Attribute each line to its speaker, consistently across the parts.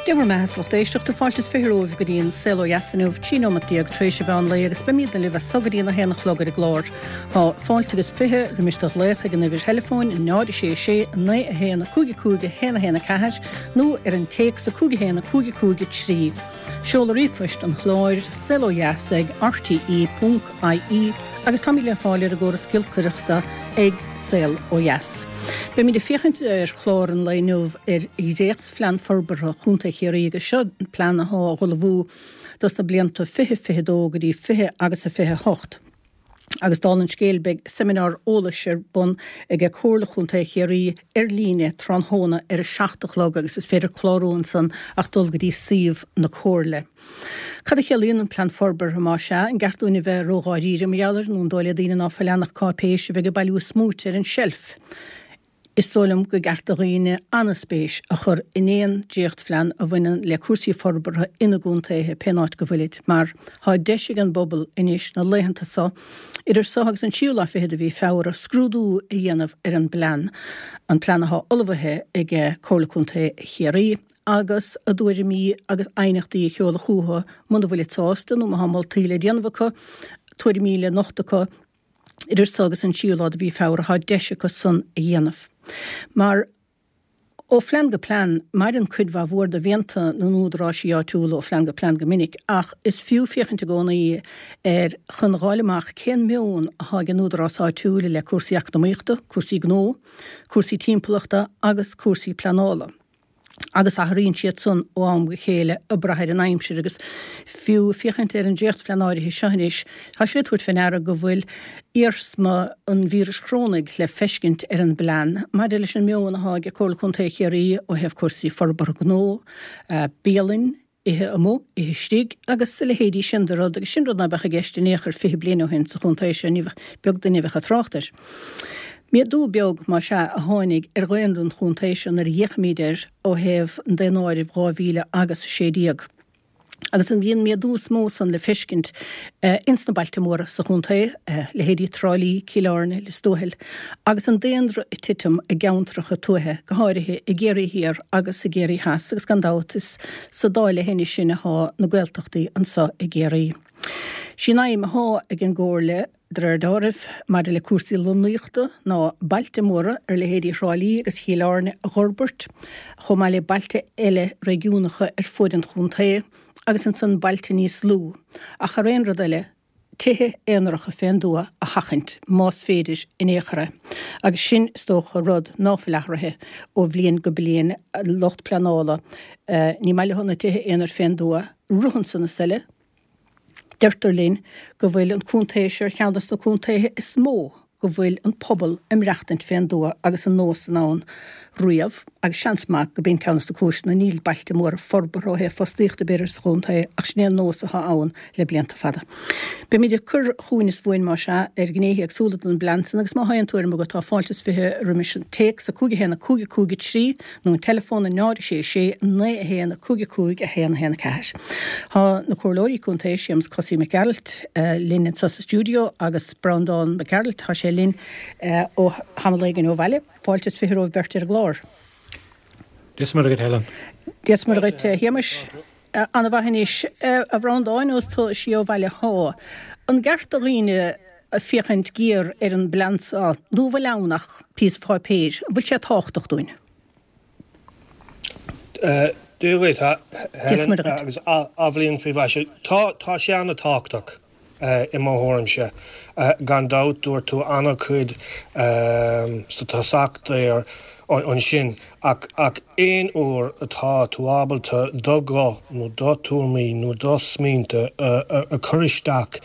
Speaker 1: Dé bhur mbeatha a lucht éisteachta, fáilte is 20 romhaibh go dtí an Saol Ó Dheas inniu, 13 nóimeat tar éis an mheán lae agus beimídne libh as so go dtí an 1 a chlog ar an gclár. Tá fáilte agus 20 roimis do ghlaoch ag an uimhir theileafóin 0 6 6 9 1 5 5 1 1 4 nó ar an téacs 5 1 5 5 3. Seoladh ríomhphoist an chláir, saolodheas ag rte ponc ie agus táimid le fáil ar an gcóras giolcaireachta ag Saol Ó Dheas. Beimid ag féachaint ar chlár an lae inniu ar dhréachtphlean forbartha Chontae Chiarraí agus seo plean athá á ullmhú dos na blianta 2022 go dtí 20 agus a 28. Agus dála an scéil beidh seimineár eolais ar bun ag Comhairle Chontae Chiarraí ar líne tráthnóna ar a 7 a chlog agus is féidir clárú ansan ach dul go dtí suíomh na Comhairle. Cad a chiallaíonn an Plean Forbartha, más ea? An gceart dúinn a bheith ródháiríre mar gheall air nó an dóigh le daoine ná fuil ann ach cáipéis a bheidh ag bailiú smúit ar an tseilf? Is dóigh liom go gceart do dhaoine an-spéis a chur in aon dréachtphlean a bhaineann le cúrsaí forbartha ina gcontaetha, pén áit go bhfuilid, mar tá deis ag an bpobal anois na laethanta so, idir so agus an tríú lá fichead de mhí Feabhra, scrúdú a dhéanamh ar an bplean, an plean athá ullmhaithe ag Comhairle Contae Chiarraí, agus a dtuairimí agus aighneachtaí a sheoladh chucu muna bhfuilid sásta nó má thá moltaí le déanamh acu, tuairimí le nochtadh acu. Idir so agus an tríú lá de mhí Feabhra tá deis acu san a dhéanamh. Mar ó phlean go plean, maireann cuid mhaith mhór de mhianta na n-údaráisí áitiúla ó phlean go plean go minic, ach is fiú féachaint i gcónaí air chun dh'fháil amach cén meon athá ag an údarás áitiúil i leith cúrsaí eacnamaíochta, cúrsaí gnó, cúrsaí timpeallachta agus cúrsaí pleanála. agus athraíonn siad san ó am go chéile ag brath ar an aimsir agus fiú féachaint ar an dréachtphlean áirithe seo anois, tá sé le tabhairt fé ndeara go bhfuil iarsma an víris chorónaigh le feiscint ar an bplean maidir leis an meon athá ag Comhairle Contae Chiarraí ó thaobh cúrsaí forbartha gnó, bialainn, ithe amuigh, ithe istigh agus a leithéidí sin de rud, agus sin rud ná beadh i gceist in aon chor 20 bliain ó shin sa chontae seo, ní bheadh, beag duine a bheadh ag trácht air. Méadú beag, más ea, a tháinig ar dhaonra an chontae seo nuair a fhéachaimid air ó thaobh an daonáirimh 2000 agus 16. Agus an bhí an méadú is mó san le feiscint ins na bailte móra sa chontae, leithéidí Trá Lí, Cill Airne, Lios Tuathail, agus an daonra ag titim i gceantracha tuaithe, go háirithe i gCiarraí Thiar agus i gCiarraí Theas, agus gan dabht is sa dá leithinis sin athá na Gaeltachtaí anso i gCiarraí. Sí an aidhm athá ag an gComhairle, de réir deáraimh, maidir le cúrsaí lonnaíochta ná bailte móra ar leithéidí Thrá Lí agus Chill Airne a dh'fhorbairt, chomh maith le bailte eile réigiúnacha ar fuaid an chontae, agus ansan bailte níos lú, ach thar aon rud eile, tithe aonaracha fén dtuath a sheachaint, más féidir in aon chor é. Agus sin, is dócha, rud ná fuil athraithe ó bhliain go bliain, lucht pleanála, ní maith leo na tithe aonair fén dtuath, rud ansan is eile, deirtear linn go bhfuil an contae seo ar cheann de na contaetha is mó go bhfuil an pobal ag maireachtaint fén dtuath agus an nós san ann riamh agus seans maith go b'in ceann de na cúiseanna níl bailte móra forbartha ó thaobh fostaíochta b'fhéidir sa chontae ach sin é an nós atá ann le blianta fada. Beimid ag cur chugainn is uainn más ea ar ghnéithe éagsúla den bplean san agus má thá aon tuairim agat tá fáilte is 20 roimis an téacs 5 1 5 5 3 nó an teileafón 0 6 6 9 1 5 5 1 1 4. Tá na Comhairleoirí Contae, Séamus Cosaí Mac Gearailt, linn anseo sa stiúideo agus Breandán Mac Gearailt, tá sé linn ó tamall éigin ó bhaile. Fáilte is 20 romhaibh beirt ar an gclár.
Speaker 2: Dia is Muire dhuit, Helen.
Speaker 1: Dia is Muire dhuit, a Shéamais. Ana-mhaith anois, a Bhreandáin, ós tú siar ó bhaile thá. An gceart do dhaoine féachaint géar ar an bplean seo nó an bhfuil ann ach píosa páipéir? An bhfuil sé tábhachtach dúinn?
Speaker 2: Dia dhuit, a Helen, agus athbhliain faoi mhaise. Tá, tá sé an-tábhachtach i mo thuairimse. Gan dabht, dúirt tú an-chuid sa tosach there ansin, ach ach aon uair atá tú ábalta do ghuth nó do tuairimí nó do smaointe a chur isteach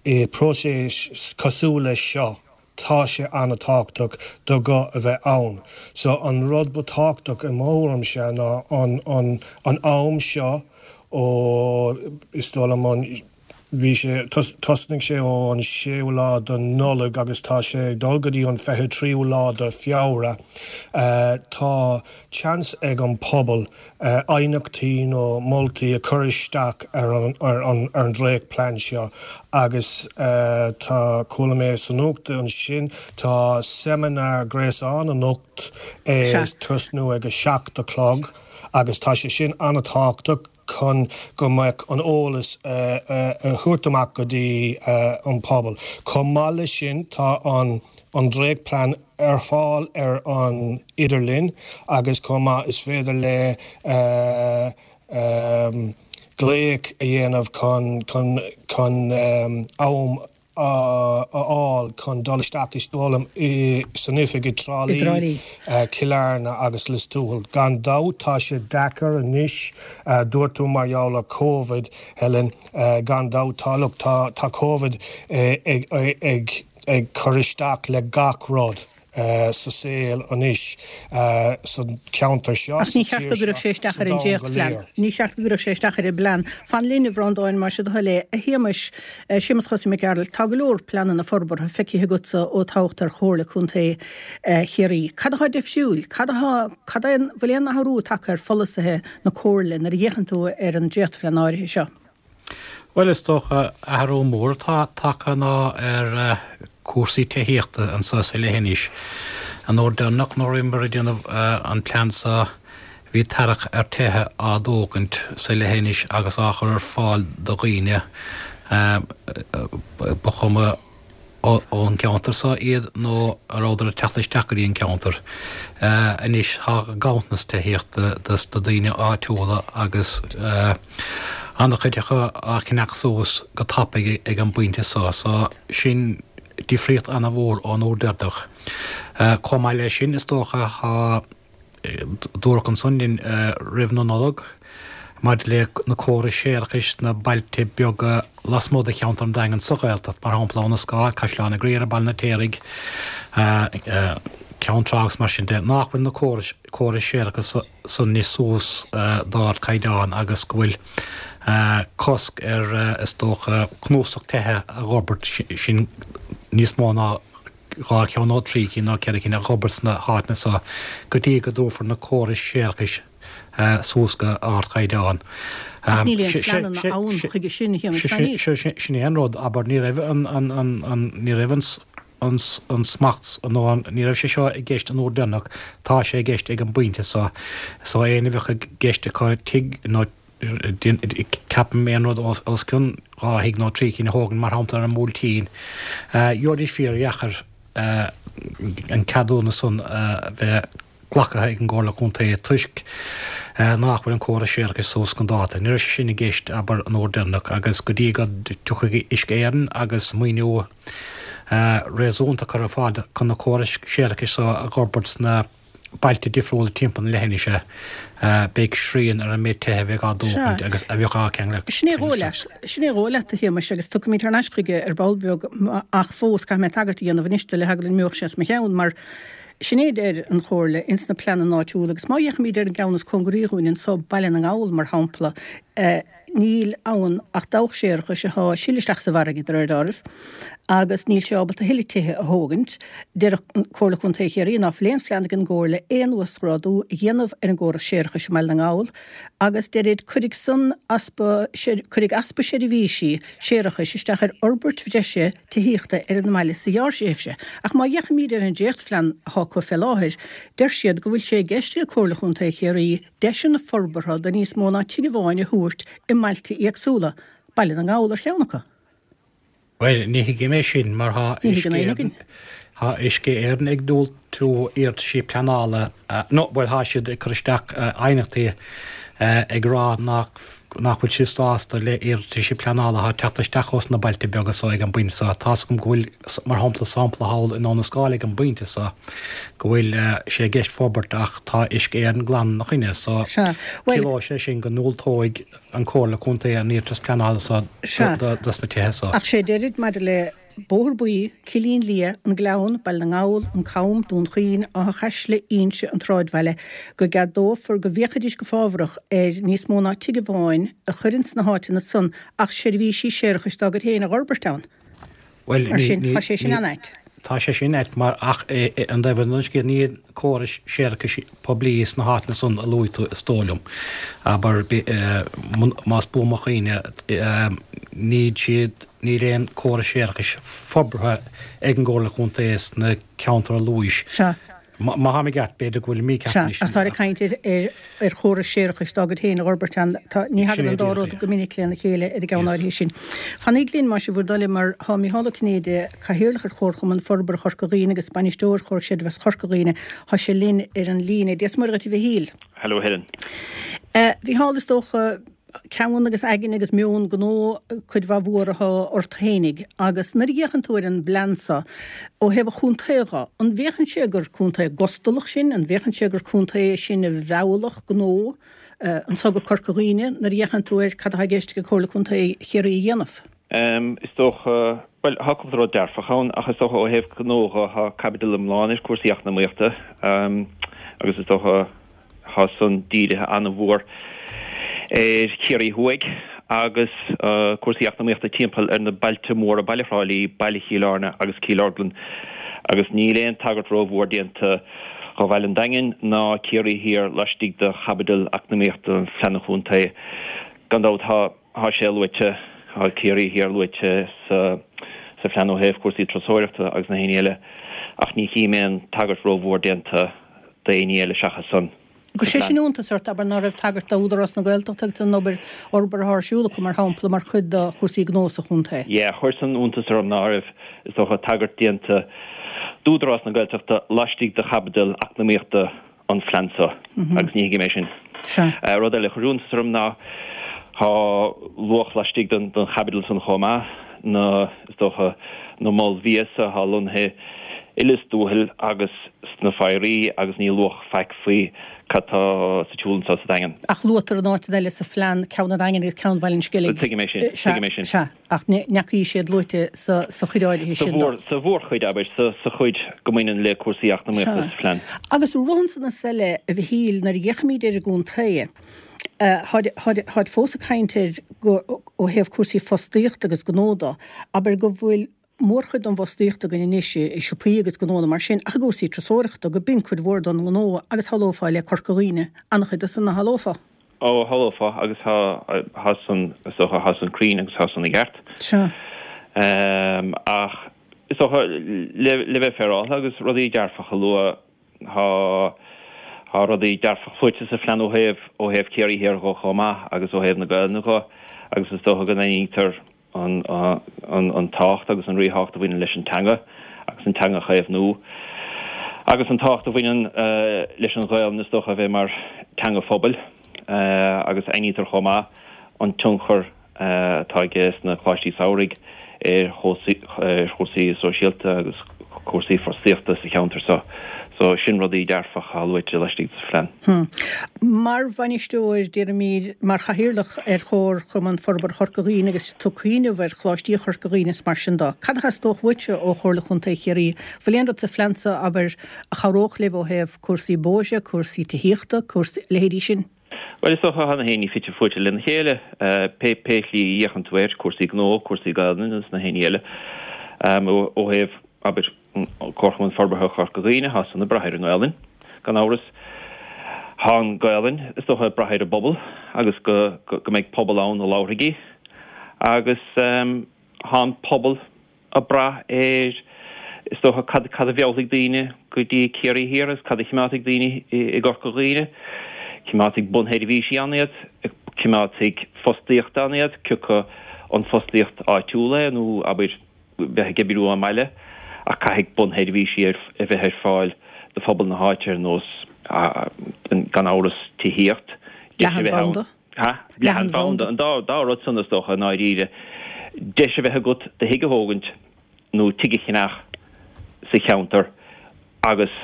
Speaker 2: i bpróiseas cosúil leis seo, tá sé an-tábhachtach do ghuth a bheith ann. So an rud ba tábhachtach i mo thuairimse ná an an an am seo ó is dóigh liom an. Bhí sé, thosnaigh sé ó an séú lá de Nollaig agus tá sé ag dul go dtí an 23ú lá de Feabhra. Tá seans ag an pobal aighneachtaí nó moltaí a chur isteach ar an ar an ar an dréachtplean seo agus tá, chuala mé sa nuacht ansin, tá seimineár gréasáin anocht ag tosnú ag a 7 a chlog agus tá sé sin an-tábhachtach. chun go mbeadh an eolas a thabhairt amach go dtí an pobal. Chomh maith leis sin tá an an dréachtplean ar fáil ar an idirlíon agus chomh maith is féidir le glaoch a dhéanamh chun chun chun am a fháil chun dul isteach is foghlaim san oifig i dTrá Lí, Cill Airne agus Lios Tuathail. Gan dabht tá sé deacair anois, dúirt tú mar gheall ar Covid, Helen, gan dabht tá, look, tá, tá Covid ag, ag, ag cur isteach le gach rud. sa saol anois sa cheantar seo,
Speaker 1: Ach
Speaker 2: sa
Speaker 1: ní cheart
Speaker 2: tír
Speaker 1: go gcuirfeadh
Speaker 2: seo,
Speaker 1: sé isteach
Speaker 2: sa
Speaker 1: ar an
Speaker 2: domhan go
Speaker 1: dréachtphlean.
Speaker 2: léir.
Speaker 1: Ní cheart go gcuirfeadh sé isteach ar an bplean. Fan linn, a Bhreandáin, más é do thoil é. A Shéamais, Séamas Chosaí Mac Gearailt, tá go leor pleananna forbartha feicthe agatsa ó toghadh tú ar Chomhairle Contae Chiarraí. Cad atá difriúil? Cad atá, cad é an, bhfuil aon athrú tagtha ar pholasaithe na Comhairle nuair a fhéachann tú ar an dréachtphlean áirithe seo?
Speaker 3: Bhuel, is dócha, athrú mór atá tagtha ná ar cúrsaí tithíochta anseo sa leithinis. An uair deireanach nuair a bhíomar ag déanamh an plean seo bhí tarrac ar tithe á dtógaint sa leithinis agus á chur ar fáil do dhaoine, ba chuma ón gceantar seo iad nó a rabhadar ag teacht isteach go dtí an ceantar. Anois tá ganntanas tithíochta dos na daoine áitiúla agus an-chuid acu á cheannach suas go tapaidh ag an bpointe seo. So sin difríocht an-mhór ón uair deireanach. Chomh maith leis sin is dócha tá. Dúradh ansan linn roimh na Nollag maidir le na córais séarachais sna bailte beaga lasmuigh de cheantar an Daingin sa Ghaeltacht, mar shampla Abha na Scáil, Caisleán an Ghriaire, Baile an Fheirtéaraigh, Ceann Trá agus mar sin de, nach bhfuil na córais córais séarachais san anois suas d'ardchaighdeán agus go bhfuil cosc ar, is dócha, cnuasach tithe a dh'fhorbairt, sin níos mó ná 2 cheann nó 3 cinn nó 4 cinn a dh'fhorbairt sna háiteanna so go dtí go dtabharfar na córais séarachais suas go ardchaighdeán.
Speaker 1: Ach níl aon phleananna ann chuige sin, a
Speaker 3: Shéamais. Sin é an rud, abair, ní raibh an, an, ní raibh an, an, an smacht nó an, ní raibh sé seo i gceist an uair deireanach, tá sé i gceist ag an bpointe so. So éinne a bheadh i gceist acu tigh nó Ceapaim aon rud os cionn 2 thigh nó 3 cinn a thógaint, mar shampla ar an mBuailtín. Gheobhaidís fíordheacair an ceadúnas san a bheith glactha ag an gComhairle Contae toisc nach bhfuil an córas séarachais suas chun dáta. Ní raibh sé sin i gceist, abair, an uair deireanach agus go dtí go dtiocfaidh Uisce Éireann agus maoiniú réasúnta a chur ar fáil chun na córais séarachais so a dh'fhorbairt sna bailte difriúla timpeall na leithinise, beidh srian ar an méid tithe a bheidh á dtógaint agus a bheadh á
Speaker 1: ceangal Sin é dhóigh leat, sin é dhóigh leat, a Shéamais, agus tiocfaimid thar n-ais chuige ar ball beag ach fós caithfidh mé tagairt a dhéanamh anois do le heagla go n-imeodh sé as mo cheann mar sin é a deir an Chomhairle ins na pleananna áitiúla agus má fhéachaimid ar an gceann is cóngaraí dhúinn anso, Baile na nGall, mar shampla, Níl ann ach dabhach séarachais atá ag sileadh isteach sa bhfarraige, de réir dealraimh, agus níl sé ábalta a thuilleadh tithe a thógaint. Deir Comhairle Contae Chiarraí ná fuil aon phlean ag an gComhairle aon uasghrádú a dhéanamh ar an gcóras séarachais i mBaile na nGall agus deirid cuirfidh san easpa cuirfidh easpa seirbhísí séarachais isteach ar fhorbairt bhreise tithíochta ar an mbaile sa ghearrthréimhse. Ach má fhéachaimid ar an dréachtphlean atá acu fé láthair, deir siad go bhfuil sé i gceist ag Comhairle Chontae Chiarraí deiseanna forbartha do níos mó ná tigh amháin a thabhairt i mbailte éagsúla, Baile na nGall ar cheann acu.
Speaker 3: Bhuel, ní thuigim é sin, mar tá
Speaker 1: Ní thuigeann éinne againn.
Speaker 3: Tá Uisce Éireann ag diúltú iarrataisí pleanála, nó, bhuel, tá siad ag cur isteach aighneachtaí ag rá nach nach bhfuil siad sásta le iarrataisí pleanála atá ag teacht isteach ós na bailte beaga so ag an bpointe so. Tá's agam go bhfuil, mar shampla, sampla thall i nDún na Scáil ag an bpointe so, go bhfuil sé i gceist forbairt ach tá Uisce Éireann glan ina choinne so ciallóidh sé sin go ndiúltóidh an Comhairle Contae an iarratas pleanála so dos na tithe so.
Speaker 1: Ach sé deirid maidir le. Bóthar Buí, Cillín Liath, An Gleann, Baile na nGall, An Cam, Dún Chaoin, Áth Chaisle, Inse, an tSráidbhaile, go gceadófar go bhféachfaidís go fábharach ar níos mó ná tigh amháin a chur ins na háiteanna san ach seirbhísí séarachais dá gcuid féin a dh'fhorbairt ann.
Speaker 3: Bhuel,
Speaker 1: Mar sin, tá sé sin an-ait.
Speaker 3: Tá sé sin ait mar ach an taobh eile den scéal níl córais séarachais poiblí sna háiteanna san a luaigh tú is dóigh liom. Abair, más buan mo chuimhne, níl siad, níl aon córas séarachais forbartha ag an gComhairle Contae sna ceantair a luais.
Speaker 1: Sea.
Speaker 3: Má tháim i gceart, b'fhéidir go bhfuil mícheart
Speaker 1: Sea, ach táthar ag caint ar chóras séarachais dá gcuid féin a dh'fhorbairt ann. Tá, ní thagann an dá rud go minic lena chéile ar an gceann áirithe sin. Fanaíg linn, más é bhur dtoil, mar tá Micheál Ó Cinnéide, Cathaoirleach ar Chomharchumann Forbartha Chorca Dhuibhne agus Bainisteoir Chomhar Creidmheasa Chorca Dhuibhne, tá sé linn ar an líne. Dia 's Muire dhuit, a Mhichíl.
Speaker 4: Hello, Helen.
Speaker 1: A Mhicheál, is dócha, ceann agus aigne agus meon gnó cuid mhaith mhór atá ort fhéinig agus nuair a fhéachann tú ar an bplean seo ó thaobh an chontae dho, an bhféachann sé gur contae gustalach sinn, an bhféachann sé gur contae sinn a mheallfadh gnó anso go Corca Dhuibhne nuair a fhéachann tú ar cad atá i gceist ag Comhairle Contae Chiarraí a dhéanamh?
Speaker 4: Is dócha, bhuel, tá cúpla rud dearfach ann ach is dócha ó thaobh gnó dho, tá caibidil iomlán ar cúrsaí eacnamaíochta agus is dócha, Tá san dírithe an-mhór ar Chiarraí Thuaidh agus cúrsaí eacnamaíochta timpeall ar na bailte móra, Baile Thrá Lí, Baile Chill Airne agus Cill Orglan agus níl aon tagairt rómhór déanta do Bhaile an Daingin ná Ciarraí Thiar laistigh de chaibidil eacnamaíochta an Phlean Chontae. Gan dabht tá tá sé luaite, tá Ciarraí Thiar luaite sa sa phlean ó thaobh cúrsaí turasóireachta agus na héinní eile ach ní chím aon tagairt rómhór déanta d'éinní eile seachas san
Speaker 1: An gcuir sé sin iontas ort, abair, ná raibh tagairt d'Údarás na Gaeltachta agus an obair fhorbartha atá ar siúl acu, mar shampla, mar chuid de chúrsaí gnó sa chontae?
Speaker 4: Yeah, chuir san iontas orm ná raibh, is dócha, tagairt déanta d'Údarás na Gaeltachta laistigh de chaibidil eacnamaíochta an phlean seo agus ní thuigim é sin.
Speaker 1: Sea.
Speaker 4: Rud eile a chuir iontas orm ná tá luach laistigh den chaibidil san chomh maith, na, is dócha, na moil bhia so atá lonnaithe i Lios Tuathail agus sna Foraois agus ní luadh faic faoi cad tá sa tsiúl anseo sa Daingean.
Speaker 1: Ach luaitear in áiteanna eile sa phlean ceann an Daingin agus ceann Bhaile an Sceilg.
Speaker 4: Tuigim é sin, tuigim é sin.
Speaker 1: Sea, ach ní fhacaís siad luaite sa chuid áirithe sin
Speaker 4: de. Sa mhórchuid, abair, sa chuid go mbaineann le cúrsaí eacnamaíochta sa phlean.
Speaker 1: Agus rud ansan is eile, a Mhichíl, nuair a fhéachaimid ar an gcontae, táid fós ag caint air go, ó thaobh cúrsaí fostaíochta agus gnó de, abair go bhfuil mórchuid den bhfostaíocht againn anois i siopaí agus gnónna mar sin ach i gcúrsaí turasóireachta, go b'in cuid mhór den ngnó agus shamhlófá le Corca Dhuibhne an-chuid de san, nach shamhlófá?
Speaker 4: Ó, shamhlófá agus tá, tá san, is dócha, tá san cruinn agus tá san i gceart.
Speaker 1: Sea.
Speaker 4: Ach is dócha, le, le bheith féaráilte agus rudaí dearfacha a lua, tá, tá rudaí dearfacha luaite sa phlean ó thaobh, ó thaobh Ciarraí Thiar dho chomh maith agus ó thaobh na Gaelainne dho agus is dócha go n-aithnítear, an tábhacht agus an ríthábhacht a bhaineann leis an teanga agus an teanga a chaomhnú agus an tábhacht a bhaineann leis an Ghaelainn is dócha a bheith mar teanga phobail agus aithnítear chomh maith an tionchar atá aige sna coláistí samhraidh ar chúrsaí sóisialta agus cúrsaí fostaíochta sa cheantar seo. So sin rudaí dearfacha atá luaite laistigh de phlean.
Speaker 1: Mar bhainisteoir, déarfaimid, mar chathaoirleach ar Chomharchumann Forbartha Chorca Dhuibhne agus tú ag cuimhneamh ar Choláistí Chorca Dhuibhne is mar sin de, cad a theastódh uaitse ó Chomhairle Chontae Chiarraí? Bhfuil aon rud sa phlean seo, abair, a chabhródh libh ó thaobh cúrsaí bóithre, cúrsaí tithíochta, cúrsaí, leithéidí sin?
Speaker 4: Bhuel, is dócha, tá na héinní fite fuaite lena chéile, pé pé shlí a fhéachann tú air, cúrsaí gnó, cúrsaí Gaelainne agus na héinní eile. Ó thaobh, abair, Comharchumann Forbartha Chorca Dhuibhne, tá san ag brath ar an nGaelainn, gan amhras. Tá an Ghaelainn, is dócha, ag brath ar an bpobal agus go go mbeidh pobal ann a labharfaidh í. Agus tá an pobal ag brath ar, is dócha, cad cad a mheallfaidh daoine go dtí Ciarraí Thiar agus cad a chimeádfaidh daoine i gCorca Dhuibhne. Cimeádfaidh bunsheirbhísí ann iad, cimeádfaidh fostaíocht ann iad, cioca an fostaíocht áitiúil é nó, abair, bheith ag oibriú ón mbaile, ach caithfidh bunsheirbhísí a bheith ar fáil do phobal na háite ar nós, gan amhras, tithíocht,
Speaker 1: deis a bheith ann.
Speaker 4: Leathanbhanda. Ha? Leathanbhanda. An dá rud san, is dócha, i ndáiríre. Deis a bheith agat do thigh a thógaint nó tigh a cheannach sa cheantar agus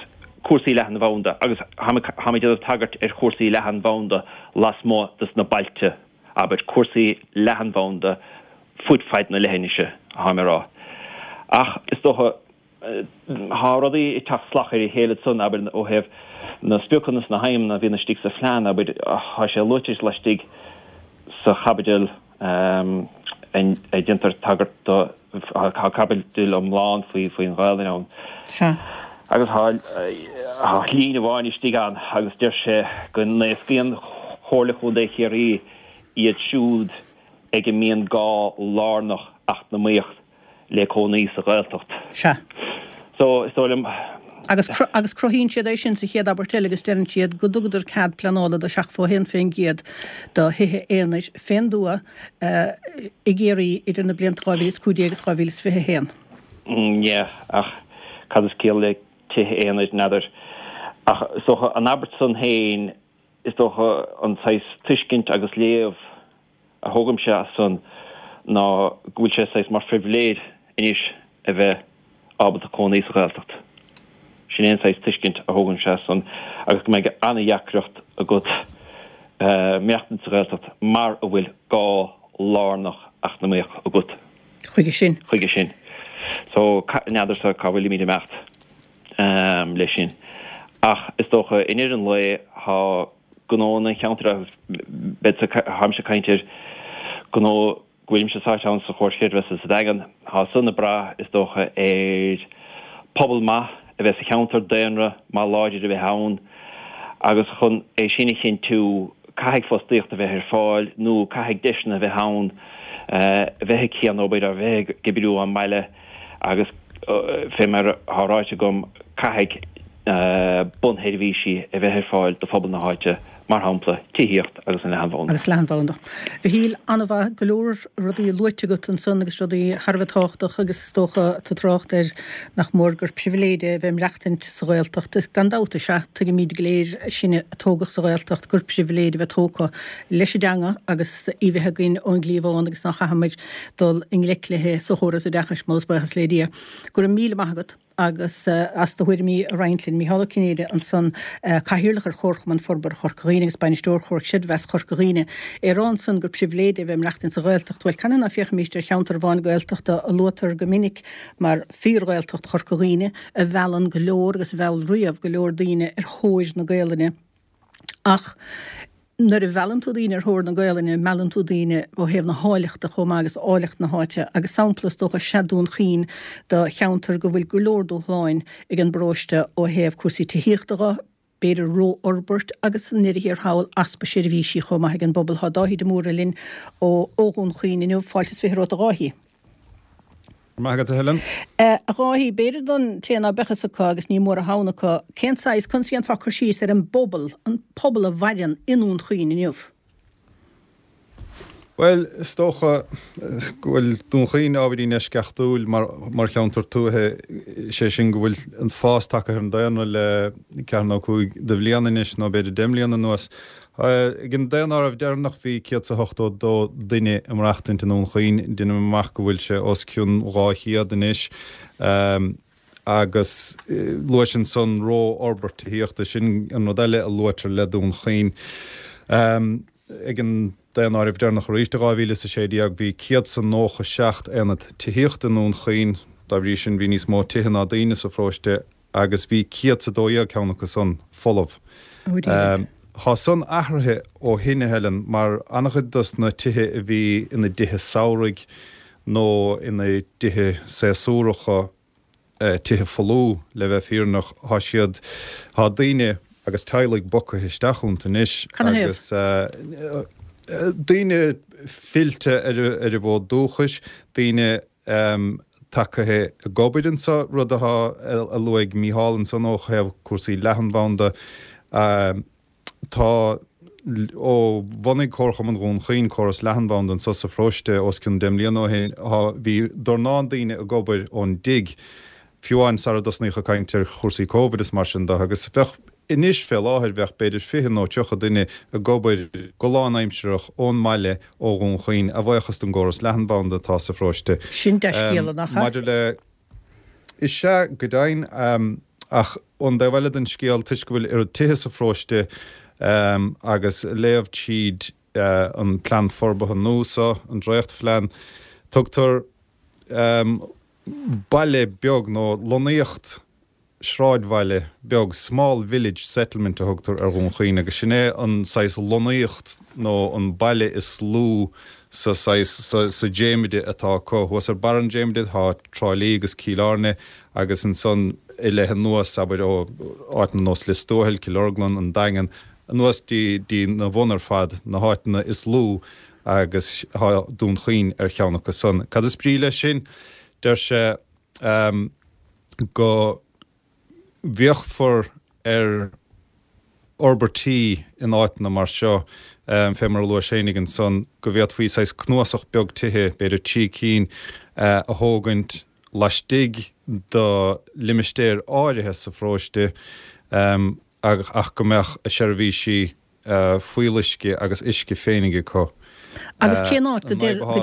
Speaker 4: cúrsaí leathanbhanda agus táim ag déanamh tagairt ar chúrsaí leathanbhanda lasmuigh dos na bailte. abair, cúrsaí leathanbhanda fud fad na leithinise, atáim a rá. Ach is dócha, tá rudaí ag teacht salach ar a chéile ansan, abair, ó thaobh na spriocanna is na haidhmeanna a bhíonn istigh sa phlean, abair, tá sé luaite laistigh sa chaibidil a déantar tagairt do, tá caibidil iomlán faoin Ghaelainn ann.
Speaker 1: Sea.
Speaker 4: Agus tá líne amháin istigh ann agus deir sé go n-éascaíonn Comhairle Chontae Chiarraí iad siúd ag a mbíonn gá lárnach eacnamaíoch le cónaí sa Ghaeltacht.
Speaker 1: Sea.
Speaker 4: So, is dóigh liom.
Speaker 1: Agus, agus cruthaíonn siad é sin sa chéad abairt eile agus deireann siad go dtugadar cead pleanála do 71% do thithe aonair fén dtuath i gCiarraí idir na blianta 2015 agus 2021.
Speaker 4: Yeah, ach cad is ciall le tithe aonair, n'fheadar. Ach is dócha an abairt san féin, is dócha an saghas tuiscint agus léamh a thógaimse as san ná go bhfuil sé saghas mar phribhléid anois a bheith ábalta cónaí sa Ghaeltacht. Sin é an saghas tuiscint a thógaimse as san agus go mbeidh an-dheacracht agat maireachtaint sa Ghaeltacht mara bhfuil gá lárnach eacnamaíoch agat.
Speaker 1: Chuige sin.
Speaker 4: Chuige sin. So, n'fheadarsa cá bhfuilimid ag imeacht leis sin. Ach is dócha i ndeireadh an lae tá gnóanna an cheantair agus beidh táimse ag caint ar gnó go bhfuilimse sáite ann sa Chomhar Creidmheasa sa Daingean. Tá san ag brath, is dócha, ar pobal maith a bheith sa cheantar, daonra maith láidir a bheith ann agus chun é sin a chinntiú caithfidh fostaíocht a bheith ar fáil nó caithfidh deiseanna a bheith ann a bheith ag cianobair, a bheith ag oibriú ón mbaile agus fé mar atá ráite agam caithfidh bunsheirbhísí a bheith ar fáil do phobal na háite, mar shampla, tithíocht agus an leathanbhanda.
Speaker 1: Agus leathanbhanda. Mhichíl, an-mhaith, go leor rudaí luaite agat ansan agus rudaí thar a bheith tábhachtach agus is dócha tú ag trácht ar nach mór gur pribhléid é a bheith ag maireachtaint sa Ghaeltacht. Is gan dabht is ea, tuigimid go léir, sinne a tógadh sa Ghaeltacht, gur pribhléid a bheith tógtha leis an dteanga agus í bheith againn ón gcliabhán agus ná chaithfimid dul i ngleic léi sa chóras oideachais, moladh is buíochas le Dia. Go raibh míle maith agat. agus as do thuairimí a roinnt linn. Micheál Ó Cinnéide ansan, Cathaoirleach ar Chomharchumann Forbartha Chorca Dhuibhne agus Bainisteoir Chomhar Creidmheasa Chorca Dhuibhne. É ag rá ansan gur pribhléid é a bheith ag maireachtaint sa Ghaeltacht. Bhuel, canathaobh ná féachfaimíst ar cheantar amháin Gaeltachta a luaitear go minic mar fíor-Ghaeltacht Chorca Dhuibhne, a mheallann go leor agus a mheall riamh go leor daoine ar thóir na Gaelainne. Ach nuair a mheallann tú daoine ar thóir na Gaelainne, meallann tú daoine ó thaobh na háilleachta chomh maith agus áilleacht na háite. Agus sampla is dócha is ea Dún Chaoin do cheantar go bhfuil go leor dúshláin ag an bparóiste ó thaobh cúrsaí tithíochta dho, b'fhéidir ró-fhorbairt agus i ndeireadh thiar thall easpa seirbhísí chomh maith ag an bpobal. Tá Dáithí de Mórdha linn ó Dhún Chaoin inniu. Fáilte is 20 romhat a Dháithí.
Speaker 5: Maith agat, a Helen.
Speaker 1: A Dháithí, b'fhéidir don té ná beadh fhios acu, agus ní mór a thoghan acu, cén saghas, conas a dhéanfá cur síos ar an bpobal, an pobal a mhaireann i nDún Chaoin inniu?
Speaker 5: Bhuel, is dócha go bhfuil Dún Chaoin ábhairín eisceachtúil mar mar cheantar tuaithe, sé sin go bhfuil an fás tagtha ar an daonra le ceathair nó 5 de bhliain anois, nó b'fhéidir 10 mbliana anuas. Ag an daonáireamh deireanach bhí 182 duine ag maireachtaint i nDún Chaoin. Deinim amach go bhfuil sé os cionn 200 anois. Agus luais ansan ró-fhorbairt tithíochta, sin an rud eile a luaitear le Dún Chaoin. Ag an daonáireamh deireanach arís i 2016 bhí 197 aonad tithíochta i nDún Chaoin. Dá bhrí sin bhí níos mó tithe ná daoine sa pharóiste. agus bhí 112 ceann acu san folamh. Thá san athraithe ó shin, a Helen, mar an-chuid dos na tithe a bhí ina dtithe samhraidh nó ina dtithe séasúracha, tithe folmha, le bheith fírinneach, thá siad, thá daoine agus teaghlaigh bogtha isteach iontu anois agus daoine fillte ar a bhfód dúchais, daoine tagtha ag obair anseo, rud atá a luaigh Mícheál ansan ó thaobh cúrsaí leathanbhanda. Tá, ó bhunaigh Comharchumann Dhún Chaoin córas leathanbhanda anseo sa pharóiste os cionn 10 mbliana ó shin, bhí dornán daoine ag obair ón dtigh, fiú amháin sara dtosnaíodh ag caint ar chúrsaí Covid is mar sin de, agus bheadh. Anois fé láthair bheadh b'fhéidir 20 nó 30 duine ag obair go lánaimsearach ón mbaile ó Dhún Chaoin, a bhuíochas don gcóras leathanbhanda atá sa pharóiste.
Speaker 1: Sin dea-scéala, nach ea?
Speaker 5: Maidir le. Is ea, go deimhin. Ach ón dtaobh eile den scéal, toisc go bhfuil oiread tithe sa pharóiste agus léamh tríd an plean forbartha nua seo, an dréachtphlean, tugtar. Baile beag nó lonnaíocht sráidbhaile beag, small village settlement a thugtar ar Dhún Chaoin agus sin é an saghas lonnaíocht nó an baile is lú sa saghas, sa dréimire atá acu. Thuas ar barr an dréimire tá Trá Lí agus Cill Airne agus ansan i leith anuas, abair, ó áiteanna nós Lios Tuathail, Cill Orglan, An Daingean, anuas dtí na bhun ar fad, na háiteanna is lú agus tá Dún Chaoin ar cheann acu san. Cad is brí leis sin? Deir sé go bhféachfar ar fhorbairtí in áiteanna mar seo, fé mar a luais fhéinig ansan, go bhféadfaí saghas cnuasach beag tithe, b'fhéidir 3 cinn, a thógaint laistigh de limistéir áirithe sa pharóiste ach go mbeadh a seirbhísí fuíolluisce agus uisce féinig acu.
Speaker 1: Agus cén áit go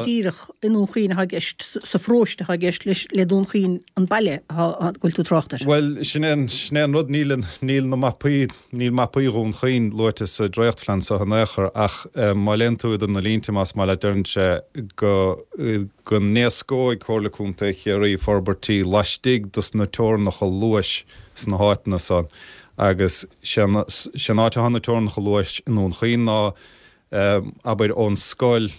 Speaker 1: díreach i nDún Chaoin atá i gceist, sa pharóiste atá i gceist leis, le Dún Chaoin an baile atá, go bhfuil tú ag trácht air?
Speaker 5: Bhuel, sin é sin é an rud, níl, níl na mapaí, níl mapaí Dhún Chaoin luaite sa dréachtphlean seo in aon chor ach má léann tú idir na línte, más maith leat, deireann sé go, go n-éascóidh Comhairle Contae Chiarraí forbairtí laistigh dos na teorainneacha luais sna háiteanna san. Agus sé an áit atá na teorainneacha luais i nDún Chaoin ná, abair, ón scoil,